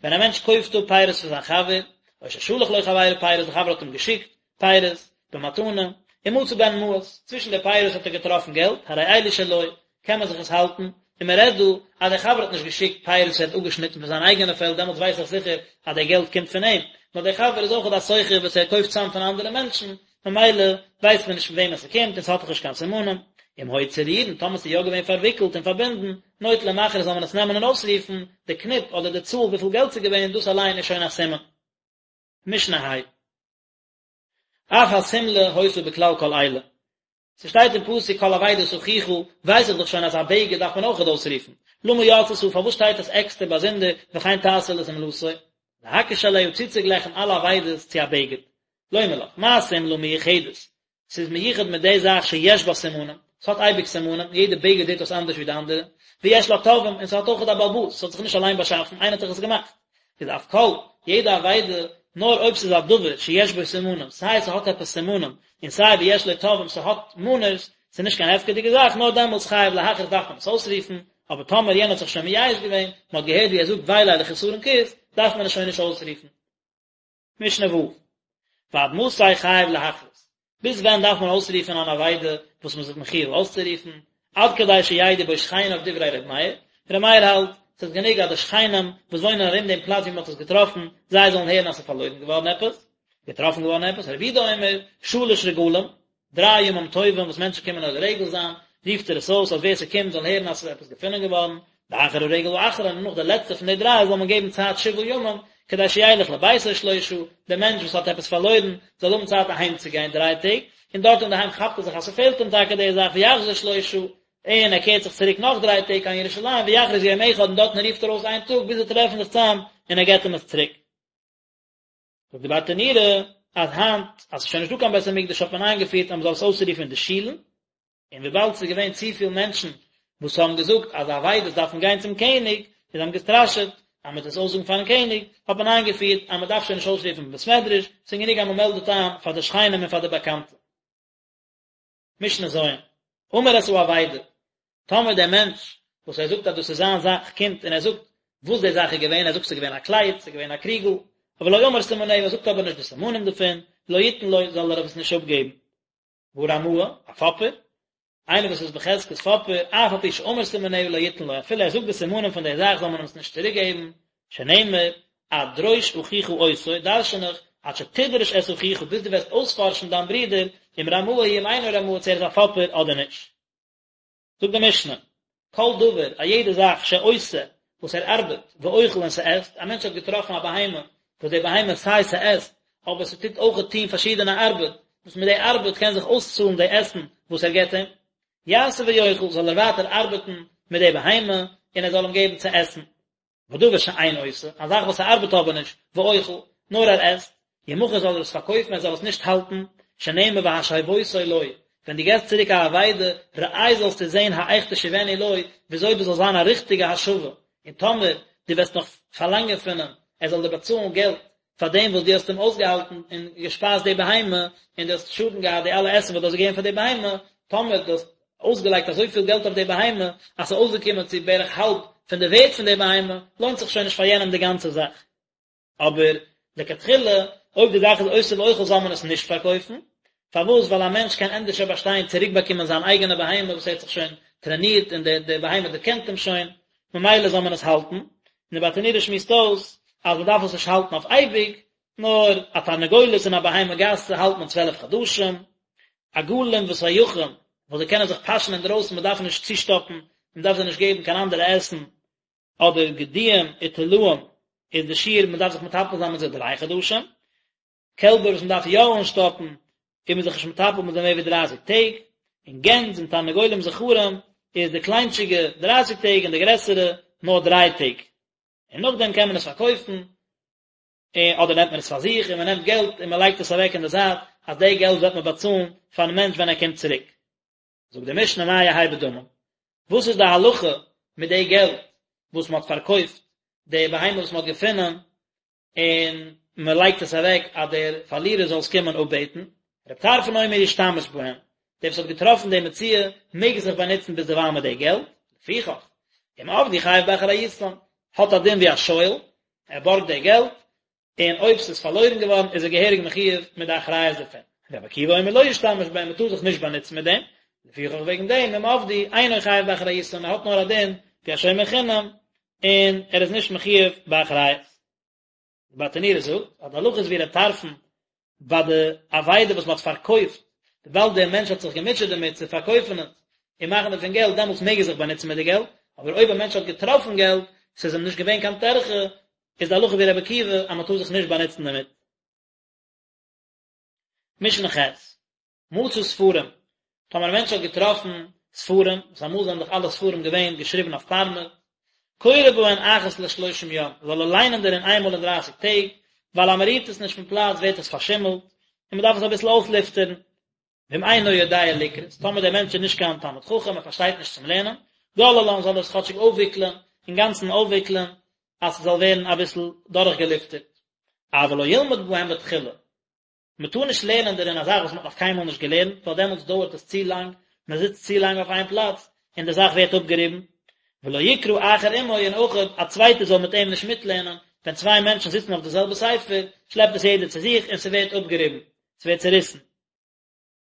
ווען א מענטש קויפט אפ פירות פון זיין חבר, או ששלח לו חברו פירות, דער חבר האט אים געשיקט פירות במתנה, ומצא בהן מעות, צווישן די פירות האט ער געטראפן געלט, הרי אלו שלו, קען מען זיך עס האלטן, און מען רעדט דא אז דער חבר האט נישט געשיקט פירות וואס ער האט אפגעשניטן פון זיין אייגענע פעלד, דעמאלטס ווייס איך זיכער אז דער געלט קומט פון אים, נאר דער חבר איז אויך א סוחר וואס ער קויפט צאם פון אנדערע מענטשן, ממילא ווייסט מען נישט פון וועמען ס'קומט און ס'האט דאך נישט קיין סימנים. אם היו צרורין, טאמער ס'איז יא געווען פארוויקלט און פארבינדן, נוטל ומכריז זאל מען עס נעמען און אויסרופן, די קניפ אדער די צאל וויפיל געלט ס'איז געווען, דאס אליין איז שוין א סימן. משנה ה'. אף השמלה היתה בכלל כל אלה. ס'שטייט אין פסוק כל אבידת אחיך, ווייס איך דאך שוין אז א בגד דארף מען אויכעט אויסרופן. למה יצתה, פארוואס שטייט עס עקסטער באזונדער, וכן תעשה לשמלתו? להקיש אליה צוצוגלייכן אלע אבידות צו א בגד. לומר לך, מה שמלה מיוחדת? ס'איז מיוחד מיט די זאך שיש בה סימנים, ס'האט אייביג סימנים, יעדע בגד זעט אויס אנדערש ווי די אנדערע, ויש לה תובעים, און ס'האט אויכעט א בעל הבית, ס'האט זיך נישט אליין באשאפן, איינער האט דאך עס געמאכט. איז אף כל, יעדע אבידה. נאר אויב ס'איז א דבר שיש בו סימנים, סיי ס'האט עפעס סימנים, און סיי ויש לו תובעים ס'האט מאנערס, ס'איז נישט קיין הפקר'דיגע זאך, נאר דעמאלטס חייב להכריז דארף מען עס אויסרופן, אבער טאמער יענער האט זיך שוין מייאש געווען, מ'האט געהערט ווי ער זאגט וויי ליה לחסרון כיס, דארף מען עס שוין נישט אויסרופן. משנה ו', ועד מתי חייב להכריז, ביז ווען דארף מען אויסרופן אן אבידה וואס מ'איז זיך מחיוב אויסצורופן, עד כדי שידעו בו שכניו דברי ר' מאיר, ר' מאיר האלט, ס'איז גענוג אז די שכנים וואס וואוינען ארום דעם פלאץ ווי מ'האט עס געטראפן, זיי זאלן הערן אז ס'איז פארלוירן געווארן עפעס, געטראפן געווארן עפעס, רבי יהודה אומר, שלש רגלים, דריי ימים טובים וואס מענטשן קומען עולה רגל זיין, רופט ער עס אויס אז ווער ס'קומט זאל הערן אז ס'איז עפעס געפונען געווארן, ואחר הרגל האחרון און נאך די לעצטע פון די דריי זאל מען געבן צייט שבעה ימים, כדי שילך לביתו שלושה, דער מענטש וואס האט עפעס פארלוירן זאל האבן צייט אהיים צו גיין דריי טעג, און דארט אינדערהיים כאפט ער זיך אז ס'פעלט אים טאקע די זאך ויחזור שלושה, און ער קערט זיך צוריק נאך דריי טעג קיין ירושלים ויכריז יום אחד און דארטן רופט ער אויס איין טאג ביז זיי טרעפן זיך צאם און ער געבט אים עס צוריק. זאגט די ברטנורא אז היינט אז ס'איז שוין נישטא קיין בית המקדש האט מען איינגעפירט אז מ'זאל עס אויסרופן אין די שולן, און וויבאלד ס'איז געווען צופיל מענטשן וואס האבן געזאגט אז אבידות דארפן גיין צום קעניג, און זיי האבן געסטראשעט אז מ'וועט עס אויסזאגן פארן קעניג, האט מען איינגעפירט אז מ'דארף שוין נישט אויסרופן אין בית מדרש, ס'איז גענוג אז מ'מעלדט איין פאר די שכנים און פאר די באקאנטע. משנה ז', אמר את האבידה, טאמער דער מענטש וואס ער זאגט אז דאס איז זיין זאך קומט און ער זאגט וואס די זאך איז געווען, ער זאגט ס'איז געווען א קלייד, ס'איז געווען א קריגל, אבער לא אמר סימניה, ער זאגט אבער נישט די סימנים דערפון, לא יתן לו, זאל ער עס נישט אפגעבן. והרמאי, א פאפער, איינער וואס איז בחזקת פאפער, אף על פי שאמר סימניה לא יתן לו, אפילו ער זאגט די סימנים פון די זאך זאל מען אים עס נישט צוריק געבן, שנאמר, עד דרוש אחיך אותו, דרשן איך, עד שתדרש את אחיך, ביז דו וועסט אויספארשן דיין ברודער, אם רמאי הוא אם אינו רמאי, צו ער איז א פאפער אדער נישט. זאגט די משנה, כל דבר, א יעדע זאך שעושה, וואס ער ארבעט, ואוכל און ס'עסט, א מענטש האט געטראפן א בהמה, וואס די בהמה סיי ס'עסט, אבער ס'טוט אויכעט טון פארשידענע ארבעט, וואס מיט די ארבעט קען זיך אויסצאלן די עסן וואס ער געבט אים, יעשה ויאכל, זאל ער ווייטער ארבעטן מיט די בהמה, און ער זאל אים געבן צו עסן. ודבר שאין עושה, א זאך וואס ס'ארבעט אבער נישט, ואוכל, נאר ער עסט, ימכר זאל ער עס פארקויפן ער זאל עס נישט האלטן, שנאמר והשבותו לו, ווען דו געסט צוריק א אבידה, ראה זאלסטו זען האיך תשיבנו לו, וויאזוי דאס זאל זיין א ריכטיגע השבה, און טאמער דו וועסט נאך פארלאנגען פון אים ער זאל דיר באצאלן געלט פאר דעם וואס דו האסט אים אויסגעהאלטן און געשפייזט די בהמה, און דו האסט שאדן געהאט די אלע עסן וואס דו האסט געגעבן פאר די בהמה, טאמער דו האסט אויסגעלייגט אזויפיל געלט אויף די בהמה, אז ס'איז אויסגעקומען צו בערך האלב פון די ווערט פון די בהמה, לוינט זיך שוין נישט פאר יענעם די גאנצע זאך. אבער לכתחילה, אויב די זאך איז עושה ואוכל זאל מען עס נישט פארקויפן, פארוואס? ווייל א מענטש קען ענדערשער באשטיין צוריקבאקומען זיין אייגענע בהמה וואס ער האט זיך שוין טרענירט און די די בהמה דערקענט אים שוין, ממילא זאל מען עס האלטן, און די ברטנורא שמועסט אויס אז מען דארף עס נישט האלטן אויף אייביג, נאר א תרנגולת און א בהמה גסה האלט מען צוועלף חדשים, עגלים וסייחים וואס זיי קענען זיך פאשען אינדרויסן מען דארף נישט צושטאפן, מען דארף זיי נישט געבן קיין אנדערע עסן, אדער גדיים וטלאים איז די שיעור מען דארף זיך מטפל זיין מיט זיי דריי חדשים, קעלבער וואס מען דארף יא אנשטאפן איז מען זיך נישט מטפל מיט זיי מער ווי דרייסיג טעג, און גענז און תרנגולים זכרים איז די קליינטשיגע דרייסיג טעג און די גרעסערע נאר דריי טעג, און נאכדעם קען מען עס פארקויפן, אדער נעמט מען עס פאר זיך און מען נעמט געלט און מען לייגט עס אוועק אין די זייט אז די געלט וועט מען באצאלן פארן מענטש ווען ער קומט צוריק. זאגט די משנה מה יהא בדמים, וואס איז די הלכה מיט די געלט וואס מען האט פארקויפט די בהמה וואס מען האט געפונען און מען לייגט עס אוועק אז דער פארלירער זאל עס קומען אפבעטן, רבי טרפון אומר ישתמש בהם, דער וואס האט געטראפן די מציאה מעג זיך באנוצן ביזדערווייל מיט די געלט, לפיכך, אם אבדו חייב באחריותן, האט א דין ווי א שואל, ער בארגט די געלט, און אויב ס'איז פארלוירן געווארן איז ער געהעריג מחיוב מיט די אחריות דערפון. רבי עקיבא אומר לא ישתמש בהם, מ'טאר זיך נישט באנוצן מיט דעם, לפיכך וועגן דעם אם אבדו אינו חייב באחריותן, ער האט נאר א דין ווי א שומר חינם, און ער איז נישט מחיוב באחריות. די ברטנורא זאגט אז די הלכה איז ווי ר' טרפון ביי די אבידה וואס מ'האט פארקויפט, וויבאלד דער מענטש האט זיך געמוטשעט דערמיט צו פארקויפן עס און מאכן דערפון געלט, דעמאלטס מעג ער זיך באנוצן מיט די געלט, אבער אויב א מענטש האט געטראפן געלט, ס'איז אים נישט געווען קיין טרחה, איז די הלכה ווי רבי עקיבא אז מ'טאר זיך נישט באנוצן דערמיט. משנה ח', מצא ספרים, טאמער א מענטש האט געטראפן ספרים, וואס אמאל זענען דאך אלע ספרים געווען געשריבן אויף פארמעט, קורא בהן אחת לשלושים יום, זאל ער ליינען דערין איינמאל אין דרייסיג טעג, ווייל אז מען רירט עס נישט פון פלאץ ווערט עס פארשימלט, און מען דארף עס אביסל אויסלופטערן. ואם אינו יודע לקרות, טאמער דער מענטש איז נישט קיין תלמיד חכם, ער פארשטייט נישט צום לערנען, גוללן זאל ער עס כאטשיג אויפוויקלען, אינגאנצן אויפוויקלען, אז ס'זאל ווערן אביסל דורכגעלופטערט. אבל לא ילמד בהם בתחילה, מען טאר נישט לערנען דערין א זאך וואס מען האט נאך קיינמאל נישט געלערנט, ווייל דעמאלטס דויערט עס צו לאנג, מען זיצט צו לאנג אויף איין פלאץ, און די זאך ווערט אפגעריבן. ולא יקרא אחר עמו, און אויך א צווייטער זאל מיט אים נישט מיטלערנען, ווען צוויי מענטשן זיצן אויף די זעלבע ספר, שלעפט עס יעדער צו זיך און ס'ווערט אפגעריבן, ס'ווערט צעריסן.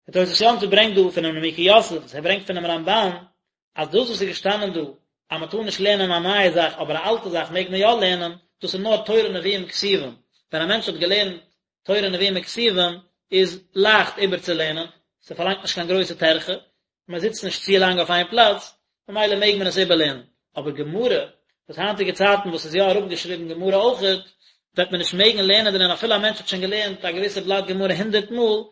דער תוס' יום טוב ברענגט דא פונעם נימוקי יוסף, וואס ער ברענגט פונעם רמב"ן, אז דאס וואס איז געשטאנען דא, אז מען טאר נישט לערנען א נייע זאך אבער א אלטע זאך מעג מען יא לערנען, דאס איז נאר תורה נביאים כתובים, ווען א מענטש האט געלערנט תורה נביאים וכתובים איז לייכט איבערצולערנען, ס'פארלאנגט נישט קיין גרויסע טרחה, מען זיצט נישט צו לאנג אויף איין פלאץ, ממילא מעג מען עס איבערלערנען. אבער גמרא, וואס היינטיגע צייטן וואס איז יא אראפגעשריבן גמרא אויכעט, וועט מען נישט מעגן לערנען דערין אפילו א מענטש האט שוין געלערנט א געוויסע בלאט גמרא הונדערט מאל,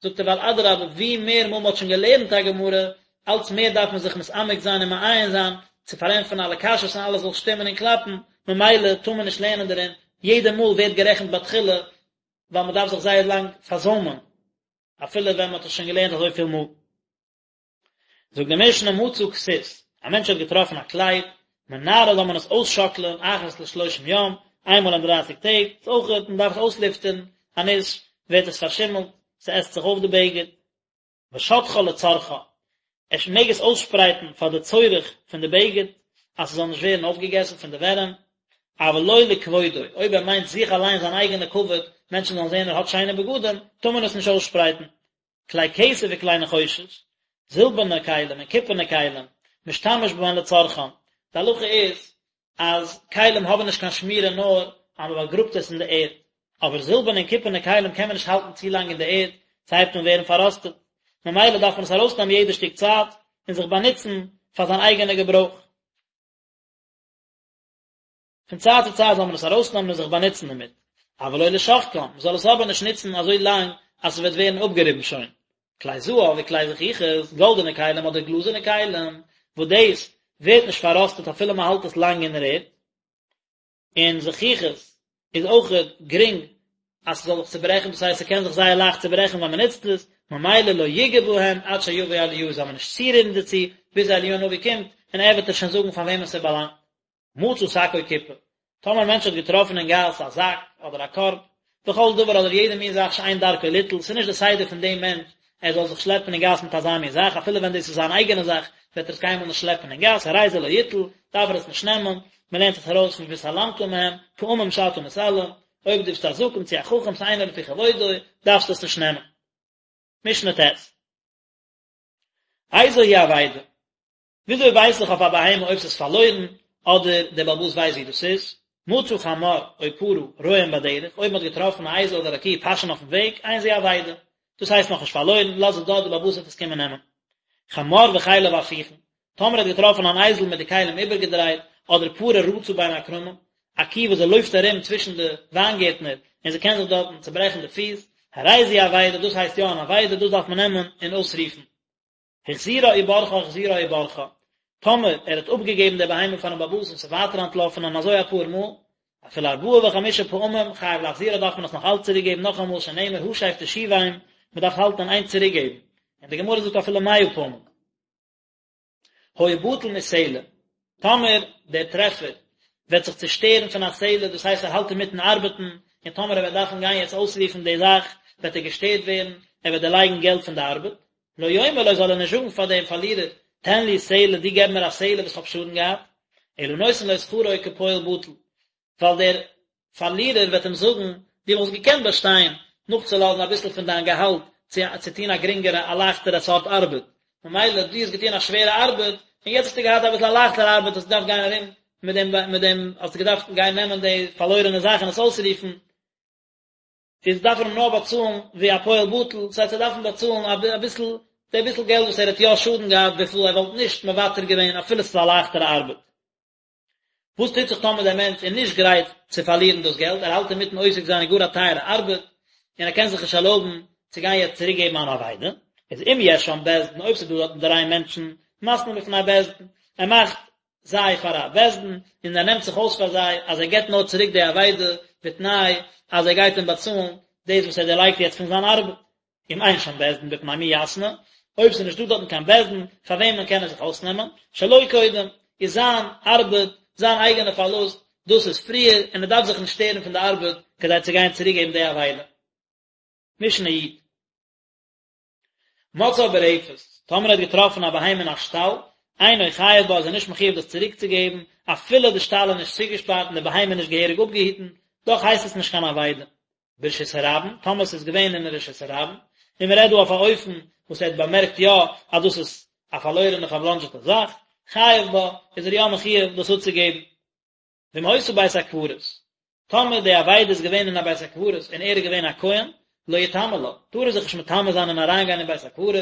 זאגט ער ווייל אדרבה ווי מער מאל מען האט שוין געלערנט א גמרא, אלץ מער דארף מען זיך מתעמק זיין און מעיין זיין, צו פארענטפערן אלע קשיות און אלעס זאל שטימען און קלאפן, ממילא טאר מען נישט לערנען דערין, יעדע מאל ווערט גערעכנט בתחילה, ווייל מען דארף זיך זייער לאנג פארזוימען, אפילו ווען מען האט עס שוין געלערנט אזויפיל מאל. זאגט די משנה מצא כסות, א מענטש האט געטראפן א קלייד, מנערה זאל מען עס אויסשאקלען אחת לשלושים יום, איינמאל אין דרייסיג טעג, ס'איז אויך מען דארף עס אויסלופטערן, אנישט ווערט עס פארשימלט, ס'עסט זיך אויף די בגד. ושוטחה לצרכה, ער מעג עס אויסשפרייטן פאר די צורך פון די בגד, אז ס'זאל נישט ווערן אויפגעגעסן פון די ווערים, אבל לא לכבודו, אויב ער מיינט זיך אליין זיין אייגענע כבוד, מענטשן זאלן זען ער האט שיינע בגדים, טאר מען עס נישט אויסשפרייטן. כלי כסף וכלי נחושת, זילבערנע כלים און קופערנע כלים, משתמש בהן לצרכן, די הלכה איז אז כלים האבן נישט קיין שמירה נאר אז מען באגראבט עס אין די ערד, אבער זילבערנע און קופערנע כלים קען מען נישט האלטן צו לאנג אין די ערד, ס'הייבט אן ווערן פארראסטעט, ממילא דארף מען עס ארויסנעמען יעדע שטיק צייט און זיך באנוצן פאר זיין אייגענע געברויך. פון צייט צו צייט זאל מען עס ארויסנעמען און זיך באנוצן דערמיט, אבל לא לשחקן, מען זאל עס אבער נישט נוצן אזוי לאנג אז עס וועט ווערן אפגעריבן שוין. כלי זהב וכלי זכוכית, גאלדענע כלים אדער גלאזערנע כלים, וואס דאס ווערט נישט פארראסטעט אפילו מען האלט עס לאנג אין דער ערד, און זכוכית איז אויכעט גרינג אז ס'זאל זיך צוברעכן, דאס הייסט ס'קען זיך זייער לייכט צוברעכן ווען מ'נוצט עס, ממילא לא יגע בהם עד שיבוא אליהו זאל מען נישט צורירן דערצו ביז אליהו הנביא קומט און ער וועט עס שוין זאגן פאר וועמען ס'באלאנגט. מצא שק או קופה, טאמער א מענטש האט געטראפן אין גאס א זאק אדער א קארב, וכל דבר אדער יעדע מין זאך שאין דרכו ליטול, ס'איז נישט די סדר פון דעם מענטש ער זאל זיך שלעפן אין גאס מיט אזא מין זאך, אפילו ווען דאס איז זיין אייגענע זאך וועט ער עס קיינמאל נישט שלעפן אין גאס, הרי זה לא יטול, דארף ער עס נישט נעמען, מען לערנט עס ארויס פון והתעלמת מהם, פעמים שאתה מתעלם, אויב דו ביסט א זקן צו א חכם שאינו לפי כבודו, דארפסטו עס נישט נעמען. משנה ט'. איזו היא אבידה? וויאזוי ווייס איך אויף א בהמה אויב ס'איז פארלוירן, אדער דער בעל הבית ווייסט ווי דאס איז? מצא חמור או פרה רועים בדרך, אויב מ'האט געטראפן א אייזל אדער א קי פאשען אויפן וועג, אין זו אבידה. דאס הייסט נאכנישט פארלוירן, לאז עס דארט, דער בעל הבית וועט עס קומען נעמען. חמור וכליו הפוכין, טאמער האט געטראפן אן אייזל מיט די כלים איבערגעדרייט, אדער פרה רצה בין הכרמים, א קי וואס זי לויפט ארום צווישן די וויינגערטנער און זי קען זיך דארטן צוברעכן די פיס, הרי זו אבידה, דאס הייסט יא אן אבידה, דאס דארף מען נעמען און אויסרופן. החזירה וברחה החזירה וברחה, טאמער ער האט אפגעגעבן די בהמה פארן בעל הבית און ס'איז ווייטער אנטלאפן און אזוי אפאר מאל, אפילו ארבעה וחמישה פעמים חייב להחזירה דארף מען עס נאך אלץ צוריק געבן נאכאמאל שנאמר השב תשיבם, מען דארף האלטן אין איין צוריק געבן, און די גמרא זאגט אפילו מאה פעמים. היה בטל מסלע, טאמער דער טרעפער וועט זיך צושטערן פון א סלע, דאס הייסט ער האלט אינמיטן ארבעטן, און טאמער ער וועט דארפן גיין יעצט אויסרופן די זאך, וועט ער געשטערט ווערן, ער וועט דערלייגן געלט פון די ארבעט. לא יאמר לו זאל ער נישט זאגן פאר דעם פארלירער, תן לי סלע, דו געב מיר א סלע וואס כ'האב שאדן געהאט, אלא נותן לו שכרו כפועל בטל, ווייל דער פארלירער וועט אים זאגן, דו וואלסט געקענט באשטיין נאכצולאזן אביסל פון דיין געהאלט צו צו טון א גרינגערע א לייכטערע סארט ארבעט, ממילא דו האסט געטון א שווערע ארבעט, און יעצט האסטו געהאט אביסל א לייכטערע ארבעט, האסט געדארפט גיין ארום מיט דעם מיט דעם, האסטו געדארפט גיין נעמען די פארלוירענע זאך און עס אויסרופן, איז דארף ער אים נאר באצאלן ווי א פועל בטל, דאס הייסט ער דארף אים באצאלן אביסל, די ביסל געלט וואס ער האט יא שאדן געהאט וויפיל ער וואלט נישט מוותר געווען אפילו ס'איז א לייכטערע ארבעט. וואס טוט זיך טאמער דער מענטש איז נישט גרייט צו פארלירן דאס געלט, ער האלט אינמיטן עוסק זיין אין גאר א טייערע ארבעט, און ער קען זיך נישט ערלויבן צו גיין יעצט צוריק געבן אן אבידה, איז אם יש שם בית דין, אויב ס'איז דא דארטן דריי מענטשן, מתנה בפני בית דין, ער מאכט זיי פאר א בית דין, און ער נעמט זיך אויס פאר זיי אז ער געבט נאר צוריק די אבידה בתנאי אז ער גייט אים באצאלן דאס וואס ער דערלייגט יעצט פון זיין ארבעט. אם אין שם בית דין בפני מי יתנה, אויב ס'איז נישטא דארטן קיין בית דין פאר וועמען קען ער זיך אויסנעמען, שלו קודם, איז זיין ארבעט, זיין אייגענע פארלוסט, דאס איז פריער, און ער דארף זיך נישט שטערן פון די ארבעט. כדי צו גיין צוריקגעבן די אבידה. משנה י'. מצאה ברפת, טאמער ער האט געטראפן א בהמה אין א שטאל, אינו חייב בה איז ער נישט מחויב דאס צוריקצוגעבן, אפילו די שטאל איז נישט צוגעשפארט און די בהמה איז נישט געהעריג אפגעהיטן, דאך הייסט עס נישט קיין אבידה. ברשות הרבים, טאמער עס איז געווען אין רשות הרבים, און מען רעדט דא אויף א אופן וואס ער האט באמערקט יא אז דאס איז א פארלוירענע פארבלאנדזשעטע זאך, חייב בה, איז ער יא מחויב דאס אפצוגעבן. ואם היתה בית הקברות, טאמער די אבידה איז געווען אין א בית הקברות און ער איז געווען א כהן, לא יטמא לה, טאר ער זיך נישט מטמא זיין און אריינגיין אין בית הקברות,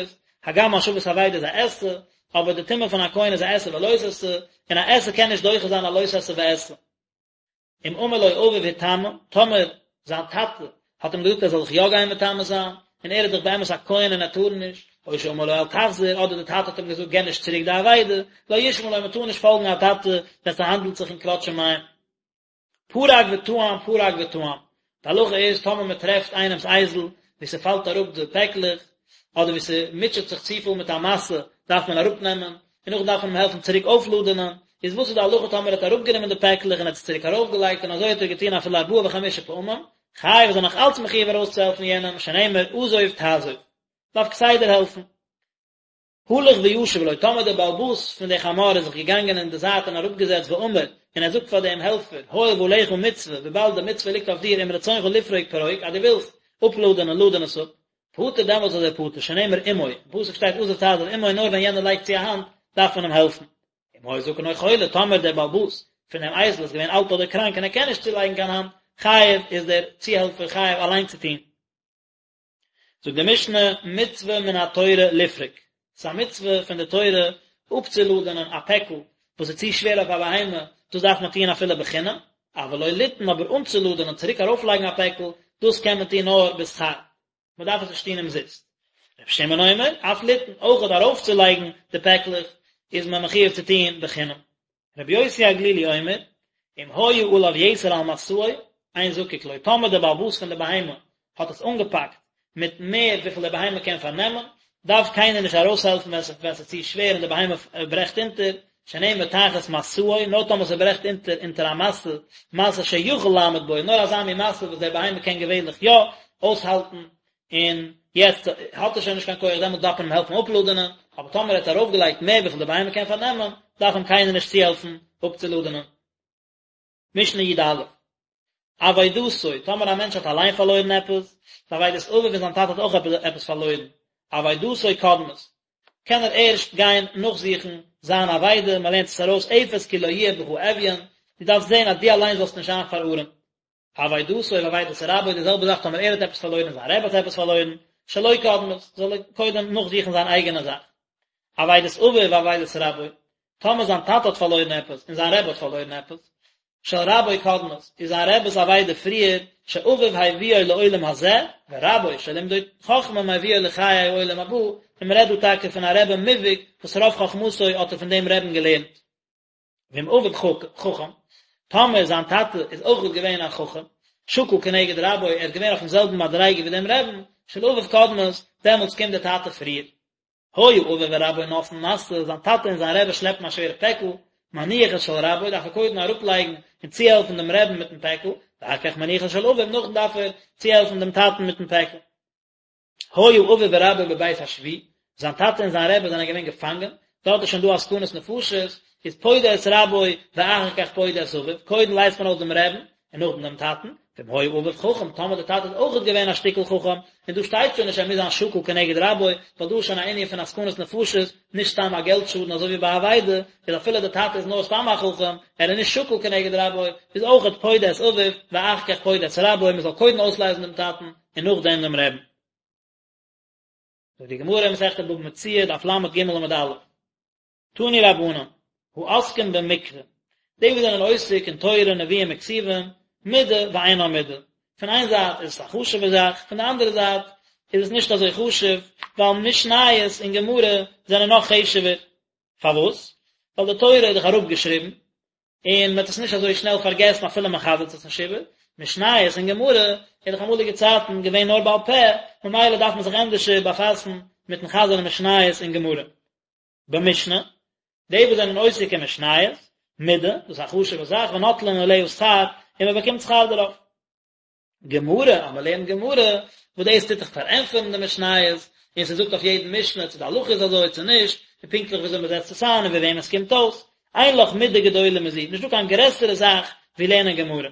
הגם השבת אבידה איז א עשה, אבער די טומאה פון א כהן איז א עשה ולא תעשה, און א עשה קען נישט דוחה זיין א לא תעשה ועשה. אם אמר לו אביו היטמא, טאמער זיין טאטע האט אים געזאגט ער זאל זיך יא גיין מטמא זיין, און ער איז דאך באמת א כהן און ער טאר נישט, או שאמר לו אל תחזיר, אדער די טאטע האט אים געזאגט גיב נישט צוריק די אבידה, לא ישמע לו מען טאר נישט פאלגן א טאטע ווען ס'האנדלט זיך אין כבוד שמים. פרק וטען פרק וטען, די הלכה איז טאמער מען טרעפט איינעמס אייזל ווי ס'פאלט אראפ די פעקלעך, אדער ווי ס'מוטשעט זיך צופיל מיט א משא, דארף מען אראפנעמען, און נאכדעם דארף מען אים העלפן צוריק אויפלאדענען, איז וואס איז די הלכה טאמער ער האט אראפגענומען די פעקלעך און האט עס צוריק ארויפגעלייגט און אזוי האט ער געטון אפילו ארבעה וחמישה פעמים, חייב איז ער נאך אלץ מחויב ארויסצוהעלפן יענעם, שנאמר עזוב תעזוב. דארף כסדר העלפן. הלך וישב לו, טאמער דער בעל הבית פון די חמור איז זיך געגאנגען אין די זייט און אראפגעזעצט ואמר, און ער זאגט פאר דעם העלפער, הואיל ועליך מצוה, וויבאלד די מצוה ליגט אויף דיר אם רצונך לפרוק פרוק, אז דו ווילסט אפלאדענען לאדען עס אפ, פטור דעמאלטס איז ער פטור, שנאמר עמו, אין פסוק שטייט עזוב תעזוב עמו נאר ווען יענער לייגט צו א האנט דארף מען אים העלפן. אם היה זקן או חולה, טאמער דער בעל הבית פון דעם אייזל איז געווען אלט אדער קראנק און ער קען נישט צולייגן קיין האנט, חייב איז דער צוהעלפער חייב אליין צו טון. זאגט די משנה, מצוה מן התורה לפרוק, ס'איז א מצוה פון די תורה אפצולאדענען א פעקל וואס איז צו שווער אויף א בהמה, דאס דארף מען טון אפילו בחינם, אבל לא לטעון, אבער אנצולאדענען, צוריק ארויפלייגן א פעקל, דאס קען מען טון נאר בשכר, מען דארף עס נישט טון אומזיסט. רבי שמעון אומר, אף לטעון, אויכעט ארויפצולייגן די פעקלעך איז מען מחויב צו טון בחינם. רבי יוסי הגלילי אומר, אם היה עליו יתר על משאו, אין זקוק לו, טאמער דער בעל הבית פון די בהמה האט עס אנגעפאקט מיט מער וויפיל די בהמה קען פארנעמען, דארף קיינער נישט ארויסהעלפן ווען ס'איז צו שווער און די בהמה ברעכט אונטער, שנאמר תחת משאו, נאר טאמער ס'ברעכט אונטער אונטער א משא, משא שיכול לעמוד בו, נאר אזא מין משא וואס דער בהמה קען געווענליך יא אויסהאלטן, און יעצט האט ער שוין נישט קיין כח דעמאלט דארף מען אים העלפן אפלאדענען, אבער טאמער ער האט ארויפגעלייגט מער וויפיל די בהמה קען פארנעמען, דארף אים קיינער נישט צוהעלפן אפצולאדענען. משנה י"א, אבידתו, טאמער א מענטש האט אליין פארלוירן עפעס, ואבידת אביו און זיין טאטע האט אויך עפעס פארלוירן, אבידתו קודמת, קען ער ערשט גיין נאכזוכן זיין אבידה, מען לערנט עס ארויס אפס כי לא יהיה בך אביון, דו דארפסט זען אז דו אליין זאלסט נישט זיין פארארעמט. אבידתו ואבידת רבו, די זעלבע זאך טאמער ער האט עפעס פארלוירן און זיין רבי האט עפעס פארלוירן, שלו קודמת, זאל ער קודם נאכזוכן זיין אייגענע זאך. אבידת אביו ואבידת רבו, טאמער זיין טאטע האט פארלוירן עפעס און זיין רבי האט פארלוירן עפעס, של רבו קודמת, איז זיין רבי'ס אבידה פריער, שאביו הביאו לעולם הזה, ורבו שלימדו חכמה מביאו לחיי העולם הבא, און מען רעדט דא טאקע פון א רבי מובהק וואס רוב חכמתו האט ער פון דעם רבי'ן געלערנט. ואם אביו חכם, טאמער זיין טאטע איז אויך געווען א חכם, שקול כנגד רבו, ער איז געווען אויפן זעלבן מדריגה ווי דעם רבי'ן, של אביו קודמת, דעמאלטס קומט דער טאטע פריער. היה אביו ורבו נושאין משא, זיין טאטע און זיין רבי שלעפן א שווערע פעקל, מניח את של רבו, דארף ער קודם אראפלייגן און צוהעלפן דעם רבי'ן מיטן פעקל, ואחר כך מניח את של אביו, נאכדעם דארף ער צוהעלפן דעם טאטן מיטן פעקל. היה אביו ורבו בבית השבי, זיין טאטע און זיין רבי זענען געווען געפאנגען, דארט איז שוין דא א סכנת נפשות, איז פודה את רבו ואחר כך פודה את אביו, קודם לייזט מען אויס דעם רבי'ן, און נאכדעם דעם טאטן, ואם היה אביו חכם, טאמער דער טאטע איז אויכעט געווען א שטיקל חכם, און דא שטייט שוין נישט ער מוז זיין שקול כנגד רבו, ווייל דא איז שוין א ענין פון א סכנת נפשות, נישט סתם א געלט שאדן אזוי ווי ביי אבידה, איז אפילו דער טאטע איז נאר סתם א חכם, ער איז נישט שקול כנגד רבו, איז אויכעט פודה את אביו, ואחר כך פודה את רבו, מען זאל קודם אויסלייזן דעם טאטן, און נאכדעם דעם רבי'ן. זאגט די גמרא אין מסכת בבא מציעא, דף לג עמוד א', תנו רבנן, העוסקים במקרא, די וואס זענען עוסק אין תורה, נביאים וכתובים, מידה ואינה מידה, פון איין זייט איז עס א חשוב'ע זאך, פון די אנדערע זייט איז עס נישט אזוי חשוב, ווייל משניות און גמרא זענען נאך חשוב'ער. פארוואס? ווייל די תורה איז דאך אראפגעשריבן, און מען וועט עס נישט אזוי שנעל פארגעסן אפילו מען חזר'ט עס נישט איבער, משניות און גמרא איז דאך אמאליגע צייטן געווען נאר בעל פה, ממילא דארף מען זיך ענדערשער באפאסן מיטן חזר'ן משניות און גמרא. במשנה, די וואס זענען עוסק אין משניות, מידה, דאס איז א חשוב'ע זאך, ונוטלין עליה שכר, און מען באקומט שכר דערויף. גמרא, אז מען לערנט גמרא, וואס דאס טוט דאך פארענטפערן די משניות, און ס'זאגט אויף יעדן משנה צו די הלכה איז אזוי צו נישט, און פונקטליך וויאזוי מען זעצט עס איין און ווי וועם עס קומט אויס. אין לך מידה גדולה מזו, נישטא קיין גרעסערע זאך ווי לערנען גמרא.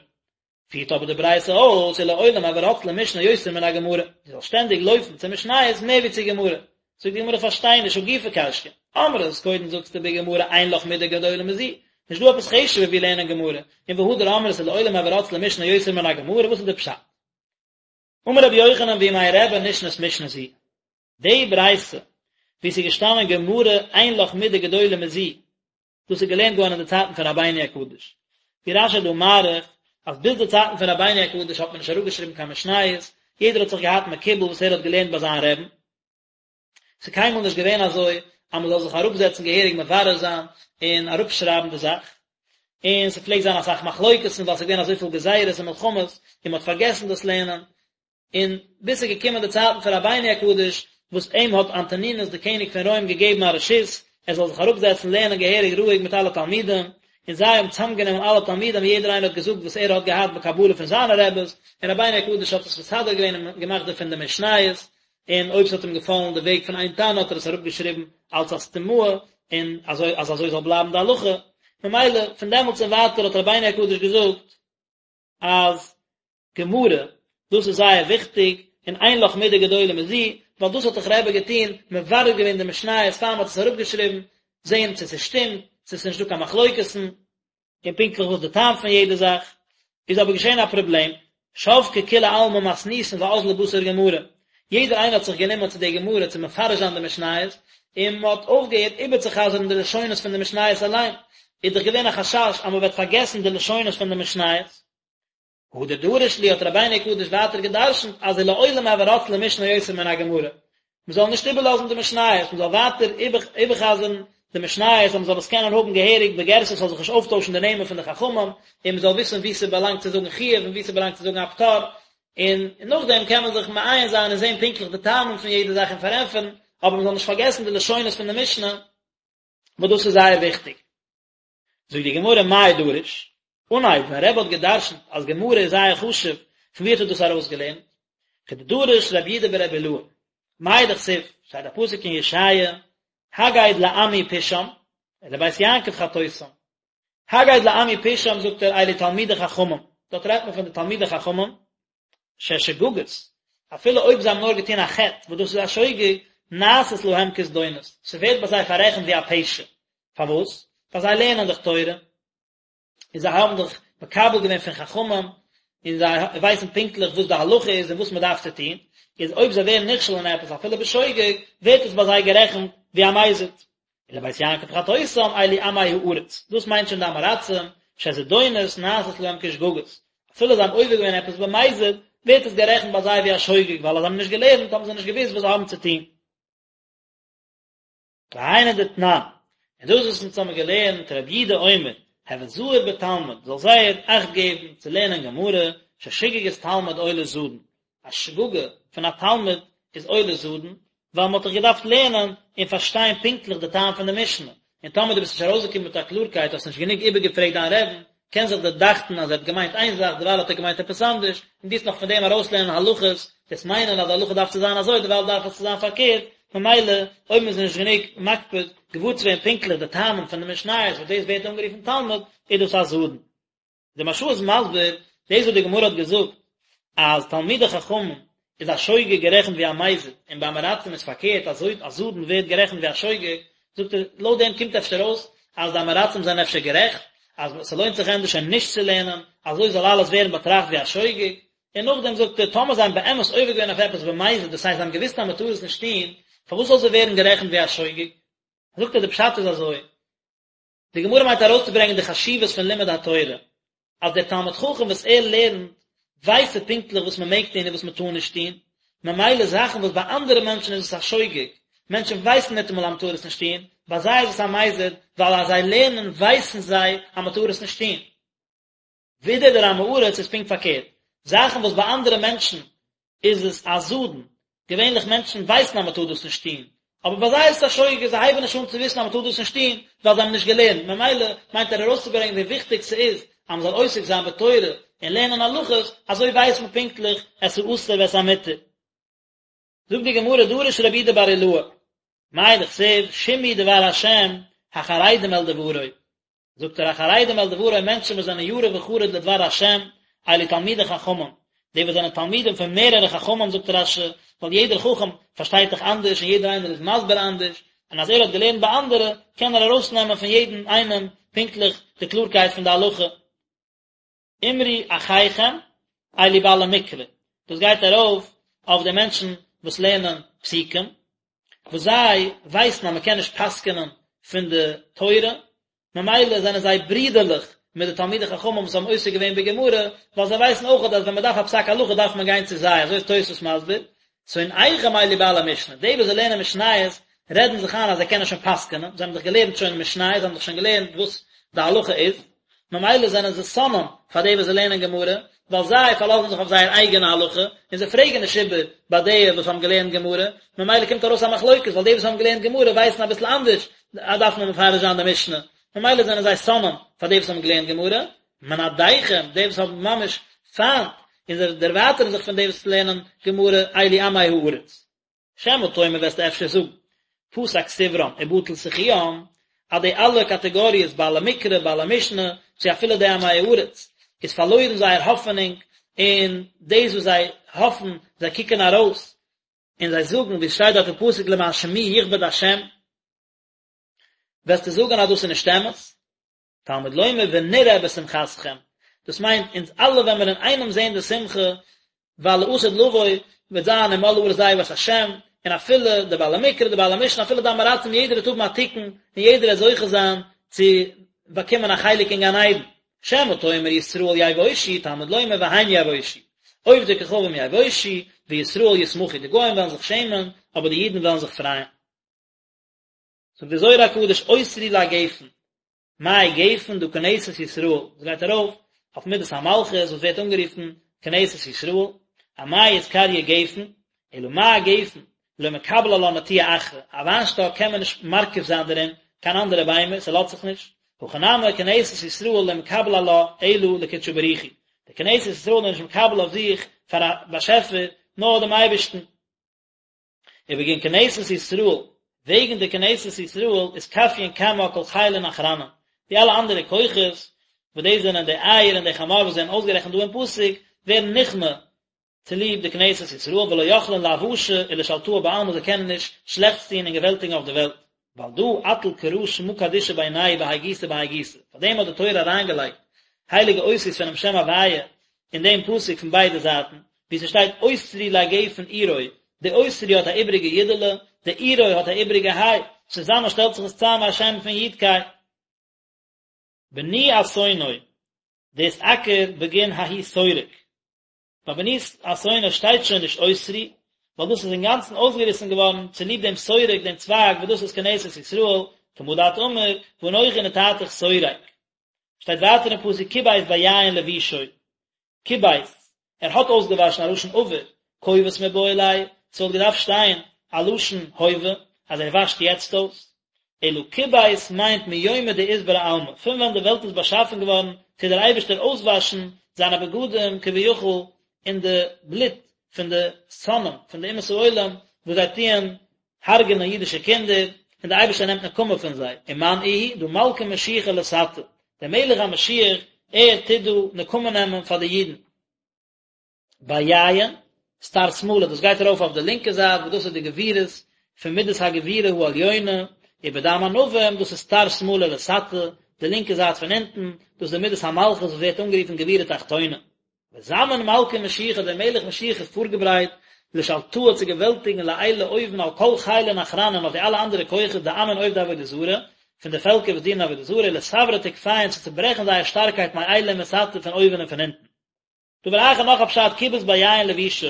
פירט אבער די ברייתא אויס, ולעולם הוי רץ למשנה יותר מן הגמרא, דו זאלסט שטענדיג לויפן צו משניות מער ווי צו גמרא. זאגט די גמרא איך פארשטיי נישט הא גופא קשיא, אמרת, קודם זאגסטו בגמרא אין לך מידה גדולה מזו, נישט דא עפעס חשוב'ער ווי לערנען גמרא, און והדר אמרת ולעולם הוי רץ למשנה יותר מן הגמרא, וואס איז די פשט? אמר רבי יוחנן בימי רבי נשנית משנה זו, די ברייתא וואו ס'איז געשטאנען גמרא אין לך מידה גדולה מזו, דאס איז געלערנט געווארן אין די צייטן פון רבינו הקדוש, ווי רש"י איז דא מאריך אז ביז די צייטן פון רבינו הקדוש האט מען נישט אראפגעשריבן קיין משניות, יעדער האט זיך געהאט מקובל וואס ער האט געלערנט ביי זיין רעבן, ס'איז קיינמאל נישט געווען אזוי אז מ'זאל זיך אראפזעצן געהעריג מברר זיין און אראפשרייבן די זאך, און ס'פלעגט זיין אסאך מחלוקת'ן ווייל ס'איז געווען אזויפיל גזירות און מלחמות און מ'האט פארגעסן דאס לערנען, און ביז ס'איז געקומען די צייטן פון רבינו הקדוש, וואס אים האט אנטונינוס די קעניג פון רוים געגעבן א רשות, ער זאל זיך אראפזעצן לערנען געהעריג רואיג מיט אלע תלמידים, און זיי האבן צוזאמגענומען אלע תלמידים און יעדער איינער האט געזאגט וואס ער האט געהאט בקבלה פון זיינע רעבעס, און רבינו הקדוש האט עס מסדר געווען און געמאכט דערפון די משניות, און אויב ס'האט אים געפאלן די וועג פון איין תנא האט ער עס אראפגעשריבן אלץ א סתימאה, און אזוי אז אזוי זאל בלייבן די הלכה, ממילא פון דעמאלטס און ווייטער האט רבינו הקדוש געזאגט אז גמרא, דאס איז זייער וויכטיג, און אין לך מידה גדולה מזו, ווייל דאס האט דאך רבי געטון, מברר געווען די משניות פאר מ'האט עס אראפגעשריבן, זען צו ס'שטימט, צו ס'איז נישטא קיין מחלוקת'ן, און פונקטליך וואס די טעם פון יעדע זאך, איז אבער געשען א פראבלעם, שבקי כולי עלמא מתניתין ואזלי בתר גמרא, יעדער איינער האט זיך גענומען צו די גמרא צו מפרש זיין די משניות, און מען האט אויפגעהערט איבערצוחזר'ן די לשונות פון די משניות אליין, איז דאך געווען א חשש אז מען וועט פארגעסן די לשונות פון די משניות. הדר דרש להו האט רבינו הקדוש ווייטער גע'דרש'נט אז ולעולם הוי רץ למשנה יותר מן הגמרא, מען זאל נישט איבערלאזן די משניות, מען זאל ווייטער איבער'חזר'ן די משניות אז מען זאל עס קענען האבן געהעריג בגירסא ס'זאל זיך נישט אויפטוישן די נעמען פון די חכמים, און מען זאל וויסן וואו ס'באלאנגט צו זאגן חיוב און וואו ס'באלאנגט צו זאגן א פטור, און נאכדעם קען מען זיך מעיין זיין און זען פונקטליך די טעמים פון יעדע זאך און פארענטפערן, אבער מען זאל נישט פארגעסן די לשונות פון די משנה, וואס דאס איז זייער וויכטיג. זאגט די גמרא מאי דריש, אנהייב ווען רבי האט גע'דרש'נט אז גמרא איז זייער חשוב, פון ווי האט ער דאס ארויסגעלערנט? כדדריש רב יהודה ברבי אילעא, מאי דכתיב, שטייט א פסוק אין ישעיה, הגד לעמי פשעם, ולבית יעקב חטאותם. הגד לעמי פשעם זאגט ער אלו תלמידי חכמים, דארט רעדט מען פון די תלמידי חכמים, ששגגות, אפילו אויב זיי האבן נאר געטון א חטא, וואס דאס איז א שוגג, נעשית להם כזדונות, ס'ווערט ביי זיי פאררעכנט ווי א פשע. פארוואס? ווייל זיי לערנען דאך תורה, און זיי האבן דאך מקבל געווען פון חכמים, און זיי ווייסן פונקטליך וואס די הלכה איז און וואס מען דארף צו טון, איז אויב זיי ווערן נכשל אין עפעס אפילו בשוגג, ווערט עס ביי זיי גערעכנט ווי א מזיד. ולבית יעקב חטאותם אלו עמי הארץ, דאס מיינט שוין די עם הארצים, שזדונות נעשות להם כשגגות, אפילו זיי האבן עובר געווען עפעס במזיד, ווערט עס גערעכנט ביי זיי ווי א שוגג, ווייל אז זיי האבן נישט געלערנט האבן זיי נישט געוואוסט וואס זיי האבן צו טון. והיינו דתנן, און דאס וואס אונז האבן געלערנט, רבי יהודה אומר, הוי זהיר בתלמוד, זאל זייער אכט געבן צו לערנען גמרא, ששגגת תלמיד עולה זדון, א שגגה פון א תלמיד איז עולה זדון, ווייל מען האט דאך געדארפט לערנען און פארשטיין פונקטליך די טעם פון די משנה, און טאמער דו ביסט נישט ארויסגעקומען מיט א קלארקייט, האסט נישט גענוג איבערגעפרעגט דיין רעבן, קען זיך דיר דאכטן אז ער האט געמיינט איין זאך, דערווייל האט ער געמיינט עפעס אנדערש, און דו וועסט נאך פון דעם ארויסלערנען הלכות, וועסט מיינען אז די הלכה דארף צו זיין אזוי, דערווייל דארף עס צו זיין פארקערט, ממילא, אויב מען איז נישט גענוג מקפיד געוואר צו ווערן פונקטליך די טעמים פון די משניות וואס דאס ווערט אנגערופן תלמוד, איז דאס א זדון. די מהרש"א איז מסביר דאס וואס די גמרא האט געזאגט אז תלמידי חכמים איז א שוגג גערעכנט ווי א מזיד און ביי עם הארצים איז פארקערט אז א זדון ווערט גערעכנט ווי א שוגג, זאגט ער לויט דעם קומט אפשר אויס אז די עם הארצים זענען אפשר גערעכט אז ס'לוינט זיך ענדערש שוין נישט צו לערנען אזוי זאל אלעס ווערן באטראכט ווי א שוגג, און נאכדעם זאגט ער טאמער זיי האבן באמת עובר געווען אויף עפעס במזיד דאס הייסט זיי האבן געוואוסט אז מ'טאר עס נישט טון, פארוואס זאל זיי ווערן גערעכנט ווי א שוגג? זאגט ער די פשט איז אזוי, די גמרא מיינט ארויסצוברענגען די חשיבות פון לימוד התורה, אז דער תלמיד חכם וואס ער לערנט, ווייסט ער פונקטליך וואס מען מעג טון און וואס מען טאר נישט טון, ממילא זאכן וואס ביי אנדערע מענטשן איז עס א שוגג, מענטשן ווייסן ניטאמאל אז מען טאר עס נישט טון, ביי זיי איז עס א מזיד, ווייל אז זיי לערנען ווייסן זיי אז מען טאר עס נישט טון. ווידער דער עם הארץ איז פונקט פארקערט, זאכן וואס ביי אנדערע מענטשן איז עס א זדון, געווענליך מענטשן ווייסן אז מען טאר דאס נישט טון, אבער ביי זיי איז עס א שוגג, זיי הייבן נישט אן צו וויסן אז מען טאר דאס נישט טון, ווייל זיי האבן נישט געלערנט, ממילא מיינט ער ארויסצוברענגען ווי וויכטיג ס'איז אז מען זאל עוסק זיין בתורה. און לערנען הלכות, אזוי ווייסט מען פונקטליך את האסור ואת המותר. זאגט די גמרא דרש רבי יהודה בר אילעאי, מאי דכתיב שמעו דבר השם החרדים אל דברו, זאגט ער החרדים אל דברו מענטשן וואס זענען ירא וחרד לדבר השם, אלו תלמידי חכמים, די וואס זענען תלמידים פון מערערע חכמים זאגט רש"י, ווייל יעדער חכם פארשטייט דאך אנדערש און יעדער איינער איז מסביר אנדערש, און אז ער האט געלערנט ביי אנדערע קען ער ארויסנעמען פון יעדן איינעם פונקטליך די קלארקייט פון די הלכה. אמרו אחיכם אלו בעלי מקרא, דאס גייט ארויף אויף די מענטשן וואס לערנען פסוקים, וואס זיי ווייסן אז מען קען נישט פסק'נען פון די תורה, ממילא זענען זיי ברידערליך מיט די תלמידי חכמים וואס האבן עוסק געווען בגמרא, ווייל זיי ווייסן אויך אז ווען מען דארף א פסק הלכה דארף מען גיין צו זיי, אזוי איז תוספות מסביר, שונאיכם אלו בעלי משנה, די וואס זיי לערנען משניות רעדן זיך איין אז זיי קענען שוין פסק'נען, זיי האבן דאך געלערנט שוין משניות, זיי האבן דאך שוין געלערנט וואס די הלכה איז, ממילא זענען זיי שונאים פאר די וואס זיי לערנען גמרא, ווייל זיי פארלאזן זיך אויף זייער אייגענע הלכה, און זיי פרעגן נישט איבער ביי די וואס האבן געלערנט גמרא, ממילא קומט ארויס א מחלוקת, ווייל די וואס האבן געלערנט גמרא ווייסן אביסל אנדערש, דארף מען מפרש זיין די משנה, ממילא זענען זיי שונאים פאר די וואס האבן געלערנט גמרא, מנדיכם, די וואס האבן ממש פיינט, און זיי דערווייטערן זיך פון די וואס לערנען גמרא, אלו עמי הארץ. שמא תאמר וועסטו אפשר זאגן, פסק סברם ובטל סיכוים, אז די אלע קאטעגאריעס בעלי מקרא, בעלי משנה, צו אפילו די עמי הארץ, איז פארלוירן זייער האפענונג, און דאס וואס זיי האפן, זיי קוקן ארויס, און זיי זאגן, ווי עס שטייט דארט אין פסוק למען שמי יכבד השם, וועסטו זאגן אז דאס איז נישט אמת? תלמוד לומר ונראה בשמחתכם, דאס מיינט אונז אלע וועלן מיר אינאיינעם זען די שמחה, ווייל לעתיד לבוא וועט זיין ומלאה הארץ דעה את השם, און אפילו די בעלי מקרא, די בעלי משנה, אפילו די עמי הארצים, יעדער וועט האבן א תיקון, און יעדער וועט זוכה זיין צו באקומען א חלק אין גן עדן. שמא תאמר ישראל יבושו, תלמוד לומר והם יבושו. עובדי כוכבים יבושו, וישראל ישמחו, די גוים וועלן זיך שעמען, אבער די אידן וועלן זיך פרייען. זאגט דער זוהר הקדוש אוסרי לגפן, מאי גפן דא כנסת ישראל, דאס גייט ארויף אויף מידת המלכות וואס ווערט אנגערופן כנסת ישראל, אמאי אתקריא גפן, אלא מה גפן, לא מקבל עלה נטיעה אחרא, א וויינשטאק קען מען נישט מרכיב זיין דערין קיין אנדערע ביימער, ס'לאזט זיך נישט, הכא נמי כנסת ישראל לא מקבל עלה אלא לקודשא בריך הוא, די כנסת ישראל איז נישט מקבל אויף זיך פאר א באשעפער נאר דעם אייבערשטן. ובגין כנסת ישראל, וועגן די כנסת ישראל אתכפיין קמה כל חילין אחרנין, די אלע אנדערע כוחות, וואס דאס זענען די איל און די חמור וואס זענען אויסגערעכנט דא אין פסוק, ווערן נכנע צוליב די כנסת ישראל, ולא יכלין לאבאשא ולשלטאה בעלמא, זיי קענען נישט שלעכטס טון און געוועלטיגן אויף די וועלט. ועל דא אטיל קרא שמא קדישא בינייהו בהאי גיסא בהאי גיסא, פאר דעם האט די תורה אריינגעלייגט הייליגע אותיות פונעם שם הוויה אין דעם פסוק פון ביידע זייטן, וואו ס'שטייט אוסרי לגפן עירו, די אוסרי האט א איבריגע יודעלע, די עירו האט א איבריגע היי, צוזאמען שטעלט זיך עס צאם א שם פון יוד קיי. בני אתונו, דאתעקר בגין ההוא שורק. ביי בני אתונו שטייט שוין נישט אוסרי, ווייל דאס איז אינגאנצן אויסגעריסן געווארן צוליב דעם שורק, דעם צווייג וואס דאס איז כנסת ישראל, כמה דאת אמר, ואנכי נטעתיך שורק. שטייט ווייטער אין פסוק כבס ביין לבושו, כבס, ער האט אויסגעוואשן א לשון עבר, כובס מיבעי ליה, ס'וואלט געדארפט שטיין א לשון הווה, אז ער וואשט יעצט אויס. אלא כבס מיינט מיומא דאתברא עלמא, פון ווען די וועלט איז באשאפן געווארן טוט דער אייבערשטער אויסוואשן זיינע בגדים כביכול אין די בלוט פון די שונאים פון די אומות העולם וואס זיי טוען הרג'נען אידישע קינדער, און דער אייבערשטער נעמט נקמה פון זיי, ומאן איהו דא מלכא משיחא לתתא, דער מלך המשיח ער טוט דא נקמה נעמען פאר די אידן. ביין, סטר שמאלא, דאס גייט ארויף אויף די לינקע זייט, וואס דאס איז די גבורות פון מידת הגבורה העליונה, ובדם ענבים, דאס איז סטר שמאלא לתתא, די לינקע זייט פון אונטן, דאס איז די מידת המלכות וואס ווערט אנגערופן גבורה תחתונה. וזמין מלכא משיחא, דער מלך משיח איז פארגעברייט, לשלטאה צו געוועלטיגן לעילא אויבן על כל חילין אחרנין אויף די אלע אנדערע כוחות דעמין עובדי עבודה זרה, פון די פעלקער וואס דינען עבודה זרה, לסברא תוקפיהון צו צוברעכן זייער שטארקייט מעילא ומתתא פון אויבן און פון אונטן. דבר אחר נאך א פשט כיבס ביין לבושו,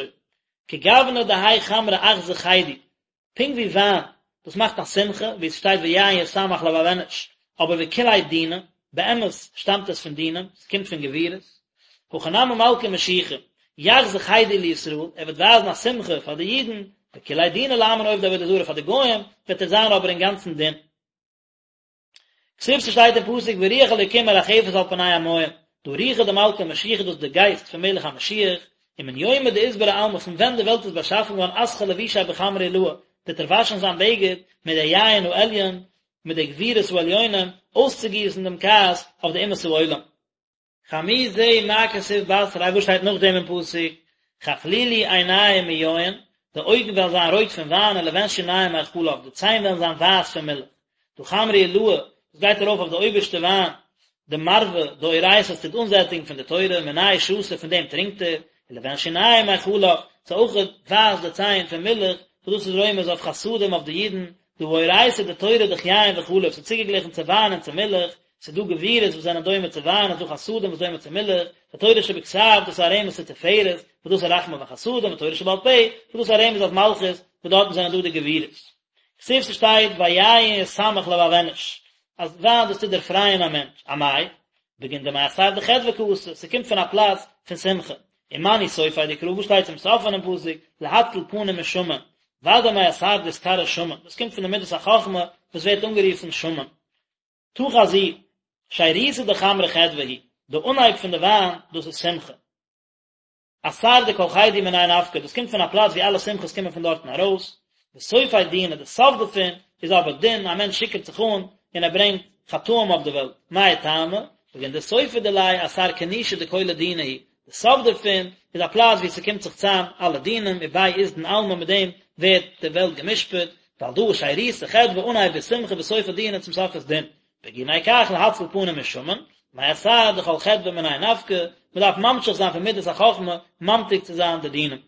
כגוונא דהאי חמרא אחזי חידו, פונקט ווי וויין, דאס מאכט א שמחה, ווי עס שטייט ויין ישמח לבב אנוש, אבער וכוליה דינא, באמת שטאמט עס פון דינים, עס קומט פון גבורות, הכא נמי מלכא משיחא, יחזי חידו לישראל, ער וועט ווייזן א שמחה פאר די אידן, וכוליה דינא לעמין עובדי עבודה זרה פאר די גוים, וועט ער זיין אבער אינגאנצן דין. כתיב ס'שטייט אין פסוק ורוח אלוקים מרחפת על פני המים. דהא רוחא דמלכא משיחא דאס איז די גייסט פון מלך המשיח, ומן יומא דאתברי עלמא פון ווען די וועלט איז באשאפן געווארן אסחי לבושיה בחמרא עילאה, טוט ער וואשן זיין בגד מיט די יין העליון, מיט די גבורות העליונים, אויסצוגיסן דעם כעס אויף די אומות העולם. חמי זה מה כתיב בתריה וואס שטייט נאכדעם אין פסוק, כחלילי עיניים מיין, די אויגן וועלן זיין רויט פון וויין ולבן שיניים מחלב, די ציין וועלן זיין ווייס פון מילך. דהא חמרא עילאה, דאס גייט ארויף אויף די אויבערשטע וויין, דמרוה דאורייתא וואס טוט אנזעטיגן פון די תורה, מיניה שתי פון דעם טרינקט ער, ולבן שיניים מחלב, ס'איז אויך ווייס די ציין פון מילך, וואס דאס איז רומז אויף חסדים אויף די אידן, דהא אורייתא די תורה דאך יין וחלב, ס'איז צוגעגליכן צו וויין און צו מילך, ס'איז דא גבורות וואס זענען דומה צו וויין, און ס'איז דא חסדים וואס דומה צו מילך, די תורה שבכתב דאס איז א רמז צו תפארת, וואס דאס איז רחמים וחסדים, ותורה שבעל פה, וואס דאס איז א רמז אויף מלכות, וואס דארטן זענען דא די גבורות. כתיב ס'שטייט ויין ישמח לבב אנוש, אז וויין דאס טוט דערפרייען א מענטש, אמאי? בגין דמאתר דחדוה קאתי, ס'קומט פון א פלאץ פון שמחה, ומנו סופיה דקרא וואס שטייט צום סוף פונעם פסוק, להציל פנים משמן, ודאי מאתר דאתקרי שמן, דאס קומט פון די מידת החכמה וואס ווערט אנגערופן שמן. תא חזי, שירותא דחמרא חדוה היא, די אנהייב פון די וויין, דאס איז שמחה. אתר דכל חידו מיניה נפקא, דאס קומט פון א פלאץ ווי אלע שמחות קומען פון דארטן ארויס, וסופיה דינא, די סוף דערפון איז אבער דין, א מענטש שיכור'ט זיך אן און ער ברענגט חטאים אויף די וועלט, מאי טעמא? בגין דסופא דיליה אתר כינושא דכולא דינא הוא, די סוף דערפון איז א פלאץ ווי ס'קומט זיך צאם אלע דינים, וביה אתדן עלמא מיט דעם ווערט די וועלט גע'משפט, ועל דא שירותא חדוה אנהייב איז שמחה וסופא דינא צום סוף איז דין. בגיני כך להציל פנים משמן, מאתר דכל חדוה מיניה נפקא, מען דארף ממשיך זיין פון מידת החכמה ממתיק צו זיין די דינים.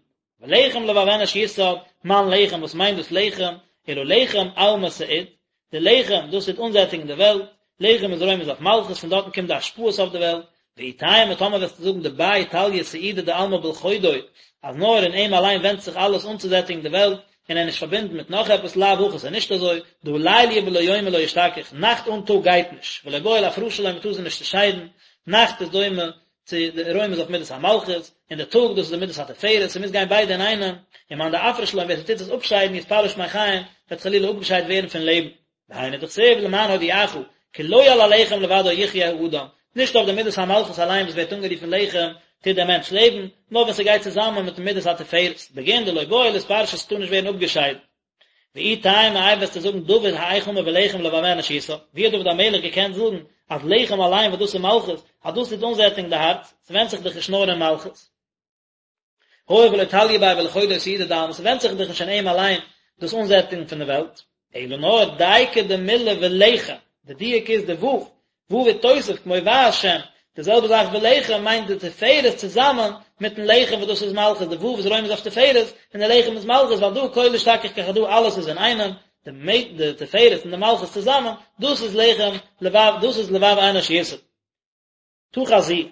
ולחם לבב אנוש יסעד, מאן לחם, וואס מיינט דאס לחם? אלא לחם עלמא סעיד, די לחם דאס טוט אנזעטיגן די וועלט, לחם איז רומז אויף מלכות, פון דארטן קומט די השפעות אויף די וועלט, ואי תימא טאמער וועסטו זאגן דביה תליא סעודה דעלמא בלחודוי, אז נאר אין אים אליין ווענדט זיך אלעס אנצוזעטיגן די וועלט, און ער איז נישט פארבינדן מיט נאך עפעס לאו הכי ס'איז נישט אזוי, דהא ליליא בלא יומא לא אשתכח, נאכט אן טאג גייט נישט, ולא בעי לאפרשא לון מ'טאר זיי נישט צעשיידן, נאכט איז דומה צו די רומז אויף מידת המלכות, און די טאג דאס איז די מידת התפארת, ס'מוז גיין ביידע אינאיינעם, ומאן דאפריש לון ווער ס'טוט עס אפשיידן יתפרש מחיים, וועט חלילה אפגעשיידט ווערן פון לעבן. והיינו דכתיב למען הודיעך, כי לא על הלחם לבדו יחיה האדם, נישט אויף די מידת המלכות אליין וואס ווערט אנגערופן לחם, טוט דער מענטש לעבן, נאר ווען ס'גייט צוזאמען מיטן מידת התפארת, בגין דלא בעי לאתפרשא ס'טאר נישט ווערן אפגעשיידט. ואי תימא איי וועסטו זאגן דוד האיך אמר ולחם לבב אנוש יסעד, ווי האט דוד המלך געקענט זאגן אז לחם אליין וואס דאס איז מלכות, אז דאס טוט אנזעטיגן די הארץ, ס'ווענדט זיך דאך נישט נאר אין מלכות. הואיל ולא תליא ביה בלחודוי סעודה דעלמא, ס'ווענדט זיך דאך נישט אין אים אליין דאס אנזעטיגן פון די וועלט, אלא נאר דייקא דמילה ולחם, די דיוק איז די ו', ו' איתותב כמו והשם, די זעלבע זאך ולחם מיינט די תפארת צוזאמען מיטן לחם וואס דאס איז מלכות, די ו' איז רומז אויף תפארת און די לחם איז מלכות ועל דא כולא אשתכח כחדא אלעס איז אינאיינעם, די תפארת און די מלכות צוזאמען, דאס איז לחם לבב, דאס איז לבב אנוש יסעד. תא חזי,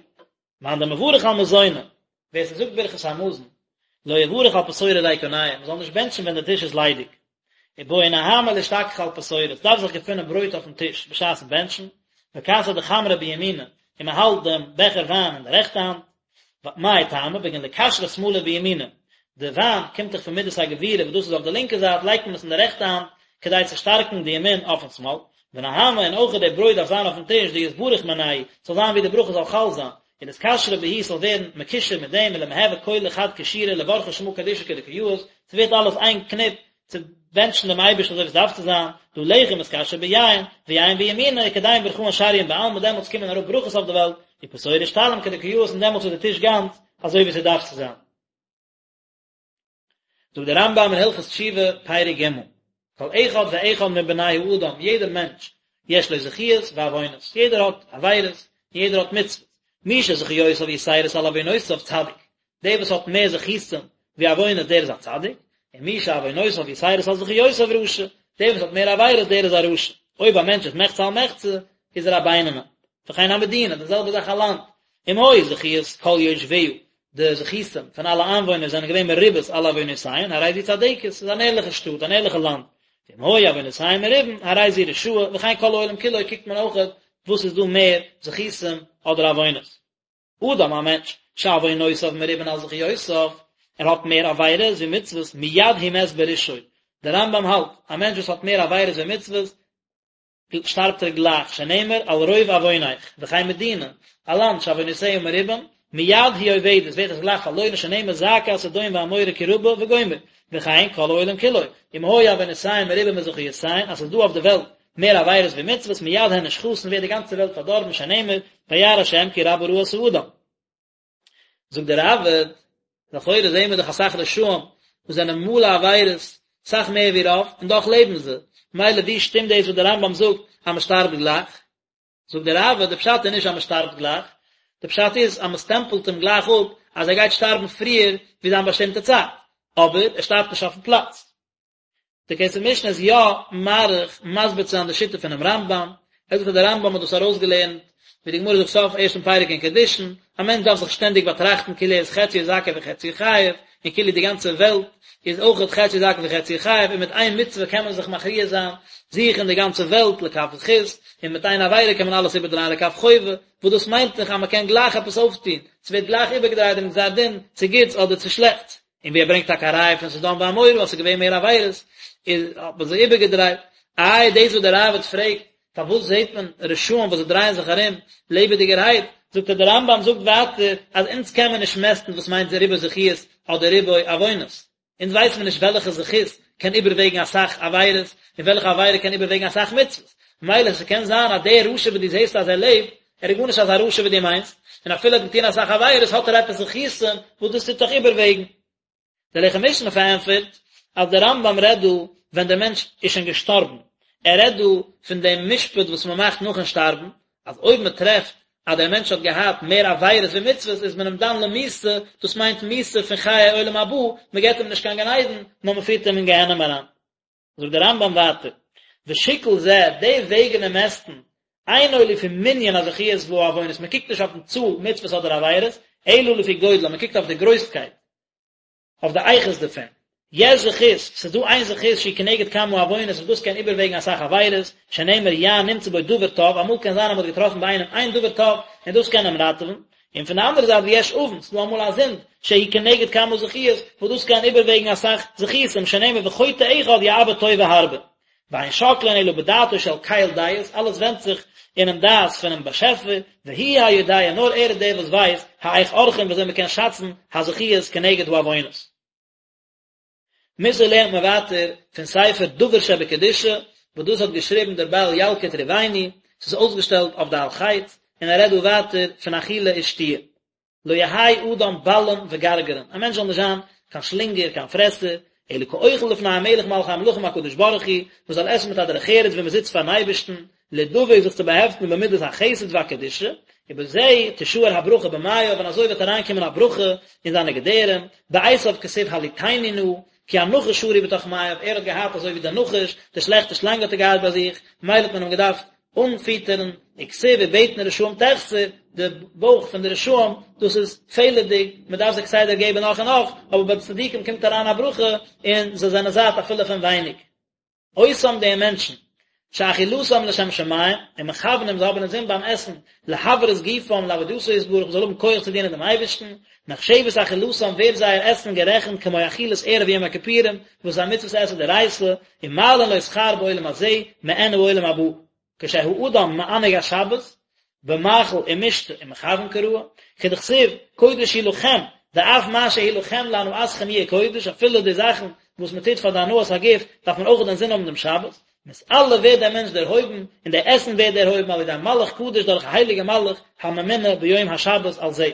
מאן דמברך על מזונא, ווער ס'זאגט ברכת המזון, לא יברך על פתורא ריקניא, מ'זאל נישט בענטשן ווען די טיש איז ליידיג. ובעי נהמא לאשתכחא על פתורא, ס'דארף זיך געפונען ברויט אויפן טיש בשעת'ן בענטשן, וכסא דחמרא בימינא, און מ'האלט דעם בעכער וויין אין די רעכטע האנט, מאי טעמא, בגין לקשרא שמאלא בימינא, די וויין קומט דאך פון מידת הגבורה וואס דאס איז אויף די לינקע זייט לייגט מען עס אין די רעכטע האנט כדי צו שטארקן די ימין אויפן שמאל, ונהמא און אויך די ברויט דארף זיין אויפן טיש דיתברך מינייהו, ס'זאל זיין ווי די ברכה זאל חל זיין, ולאתקשרא בהו ס'זאל ווערן מקושר מיט דעם ולמהוי כולא חד קשירא לברכא שמא קדישא כדקא יאות, ס'ווערט אלעס איין קניפ צו בענטשן דעם אייבערשטן אזוי ווי עס דארף צו זיין, דהא לחם אתקשר ביין, ויין בימינא, וכדין ברכאן שריין בעלמא, דעמאלטס קומען אראפ ברכות אויף די וועלט, ופתורא אשתלים כדקא יאות און דעמאלטס איז די טיש גאנץ אזוי ווי ס'דארף צו זיין. זאגט דער רמב"ם אין הלכות תשובה, פרק ג', כל אחד ואחד מבני האדם, יעדער מענטש, יש לו זכיות ועוונות, יעדער האט עבירות, און יעדער האט מצוות, מי שזכיותיו יתירות על עוונותיו צדיק, דער וואס האט מער זכותים ווי עוונות דער איז א צדיק, און מי שעוונותיו יתירות על זכיותיו רשע, דער וואס האט מער עבירות דער איז א רשע. אויב א מענטש איז מחצה על מחצה, איז ער א בינוני. וכן המדינה, די זעלבע זאך א לאנד, אם היו זכיות כל יושביה, די זכותים פון אלע איינוואוינער זענען געווען מרובות על עוונותיהן, הרי זו צדקת, ס'איז אן ערליכע שטאט, אן ערליכע לאנד. ואם היו עוונותיהן מרובין, הרי זו רשעה, וכן כל העולם כולו קוקט מען אויכעט וואס איז דא מער זכותים אדער עוונות. אדם א מענטש, שעוונותיו מרובין על זכיותיו, ער האט מער עבירות ווי מצוות, מיד הוא מת ברשעו. דער רמב"ם האלט, א מענטש וואס האט מער עבירות ווי מצוות, שטארבט ער גלייך, שנאמר על רוב עוונך, וכן מדינה, א לאנד שעוונותיה מרובים, מיד היא אובדת, ווערט עס גלייך פארלוירן, שנאמר זעקת סדום ועמורה כי רבה וגומר, וכן כל העולם כולו, אם היו עוונותיהם מרובים מזכיותיהן, אז ס'איז דא אויף די וועלט מער עבירות ווי מצוות, מיד הן נשחתין ווערט די גאנצע וועלט פארדארבן, שנאמר וירא השם כי רבה רעת האדם. זאגט דער ראב"ד, לכאורה זעהן מיר דאך אסאך רשעים וואס זענען מלא עבירות, אסאך מער ווי רוב, און דאך לעבן זיי, מילא ווי שטימט דאס וואס דער רמב"ם זאגט אז מען שטארבט גלייך? זאגט דער ראב"ד, די פשט איז נישט אז מען שטארבט גלייך, די פשט איז אז מען סטעמפלט אים גלייך אפ אז ער גייט שטארבן פריער ווי זיין באשטימטע צייט, אבער ער שטארבט נישט אויפן פלאץ. דער כסף משנה איז יא מאריך מסביר צו זיין די שיטה פונעם רמב"ם, ער זאגט אז דער רמב"ם האט דאס ארויסגעלערנט, ווי די גמרא זאגט סוף ערשטן פרק אין קידושין, א מענטש דארף זיך שטענדיג באטראכטן כאילו ער איז חציו זכאי וחציו חייב, און כאילו די גאנצע וועלט איז אויכעט חציו זכאי וחציו חייב, און מיט איין מצוה קען מען זיך מכריע זיין זיך און די גאנצע וועלט לכף זכות, און מיט איין עבירה קען מען אלעס איבערדרייען לכף חובה, וואס דאס מיינט דאך אז מען קען גלייך עפעס אויפטון, ס'ווערט גלייך איבערגעדרייט דעם גזר דין צו גוטס אדער צו שלעכטס. און ווי ער ברענגט טאקע א ראיה פון סדום ועמורה אז ס'איז געווען מער עבירות, איז האט מען זיי איבערגעדרייט. איי דאס וואס דער ראב"ד פרעגט, פארוואס זעט מען רשעים וואס זיי דרייען זיך ארום לעבעדיגערהייט, זאגט ער דער רמב"ם זאגט ווייטער אז אונז קען מען נישט מעסטן וואס מיינט ריבוי זכיות אדער ריבוי עוונות, אונז ווייסן מיר נישט וועלכע זכות קען איבערוועגן אסאך עבירות און וועלכע עבירה קען איבערוועגן אסאך מצוות, מילא ס'קען זיין אז דער רשע וואס דו זעסט אז ער לעבט, ער איז גארנישט אזא רשע ווי דו מיינסט, און אפילו ער האט געטון אסאך עבירות האט ער עפעס זכותים וואס דאס טוט דאך איבערוועגן. דער לחם משנה פארענטפערט אז דער רמב"ם רעדט דא ווען דער מענטש איז שוין געשטארבן, ער רעדט דא פון דעם משפט וואס מען מאכט נאכן שטארבן, אז אויב מען טרעפט אז דער מענטש האט געהאט מער עבירות ווי מצוות איז מען אים דן למיתה, דאס מיינט מיתה פון חיי עולם הבא, מען געבט אים נישט קיין גן עדן, נאר מען פירט אים אין גיהנום אריין. זאגט דער רמב"ם ווייטער, ושיקול זה, די וועגן און מעסטן, אינו לפי מנין הזכיות והעוונות, מען קוקט נישט אויפן צאל מצוות אדער עבירות, אלא לפי גודלם, מען קוקט אויף די גרויסקייט, אויף די איכות דערפון. יש זכות, ס'איז דא איין זכות שהיא כנגד כמה עוונות וואס דאס קען איבערוועגן אסאך עבירות, שנאמר יען נמצא בו דבר טוב, אמאל קען זיין אז מען האט געטראפן ביי איינעם איין דבר טוב און דאס קען אים ראטעווען, און פון די אנדערע זייט ויש עוון, ס'איז דא אמאל א זינד, שהיא כנגד כמה זכיות, וואס דאס קען איבערוועגן אסאך זכותים, שנאמר וחוטא אחד יאבד טובה הרבה. ואין שוקלין אלא בדעתו של קל דעות, אלעס ווענדט זיך אינעם דעת פונעם באשעפער, והוא היודע, נאר ער איז דער וואס ווייסט, האיך עורכים ווי אזוי מ'קען שאצן הזכיות כנגד העוונות. מוסר לערנט מען ווייטער פון ספר דבר שבקדושה, וואס דאס האט געשריבן דער בעל ילקוט ראובני, ס'איז אויסגעשטעלט אויף די על חטא, און ער רעדט דא ווייטער פון אכילה ושתיה. לא יהא אדם בלען וגרגרן, א מענטש זאל נישט זיין קיין שלינגער, קיין פרעסער, אלא כאוכל לפני המלך מלכי המלכים הקדוש ברוך הוא, מען זאל עסן מיט א דרך ארץ ווי מען זיצט פארן אייבערשטן, לדבק זיך צו באהעפטן במידת החסד והקדושה, ובזה תשאר הברכה במעיו, און אזוי וועט אריינקומען א ברכה אין זיינע געדערים, בעשו כתיב הלעיטני נא, כי הנחש שרוי בתוך מעיו, ער האט געהאט אזוי ווי דער נחש, די שלעכטע שלאנג האט ער געהאט ביי זיך, ממילא האט מען אים געדארפט אנפיטערן, וכתיב ובטן רשעים תחסר, די בויך פון די רשעים, דאס איז פעלערדיג, מען דארף זיי כסדר געבן נאך און נאך, אבער ביי די צדיקים קומט אריין א ברכה, און זיי זענען זאט אפילו פון ווייניג. אותם די מענטשן, שאכילתם לשם שמים, ומכוונים זיי האבן אינזין ביים עסן, להבראת גופם לעבודתו יתברך, מ'זאל האבן כח צו דינען דעם אייבערשטן, נחשבת אכילתם ווערט זייער עסן גערעכנט כמו אכילת ערב יום הכיפורים, וואס איז א מצוות עשה דאורייתא, ומעלין לו שכר בעולם הזה, מעין העולם הבא. כשהאדם מענג השבת, במאכל ומשתה ומכוון כראוי, כדכתיב, קודש הוא לכם, דאף מה שהוא לכם להנאתכם יהיה קודש, אפילו די זאכן וואס מען טוט פאר די הנאת הגוף, דארף מען אויך אינזין האבן דעם שבת, מתעלה ווערט דער מענטש דערהויבן, און דער עסן ווערט דערהויבן על ידי מלאך קדוש דורך א הייליגע מלאך הממונה ביום השבת על זה.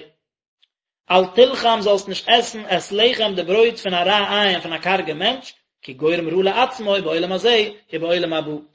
אל תלחם זאלסט נישט עסן את לחם די ברויט פון א רע עין פון א קארגע מענטש, כי גורם רע לעצמו בעולם הזה ובעולם הבא.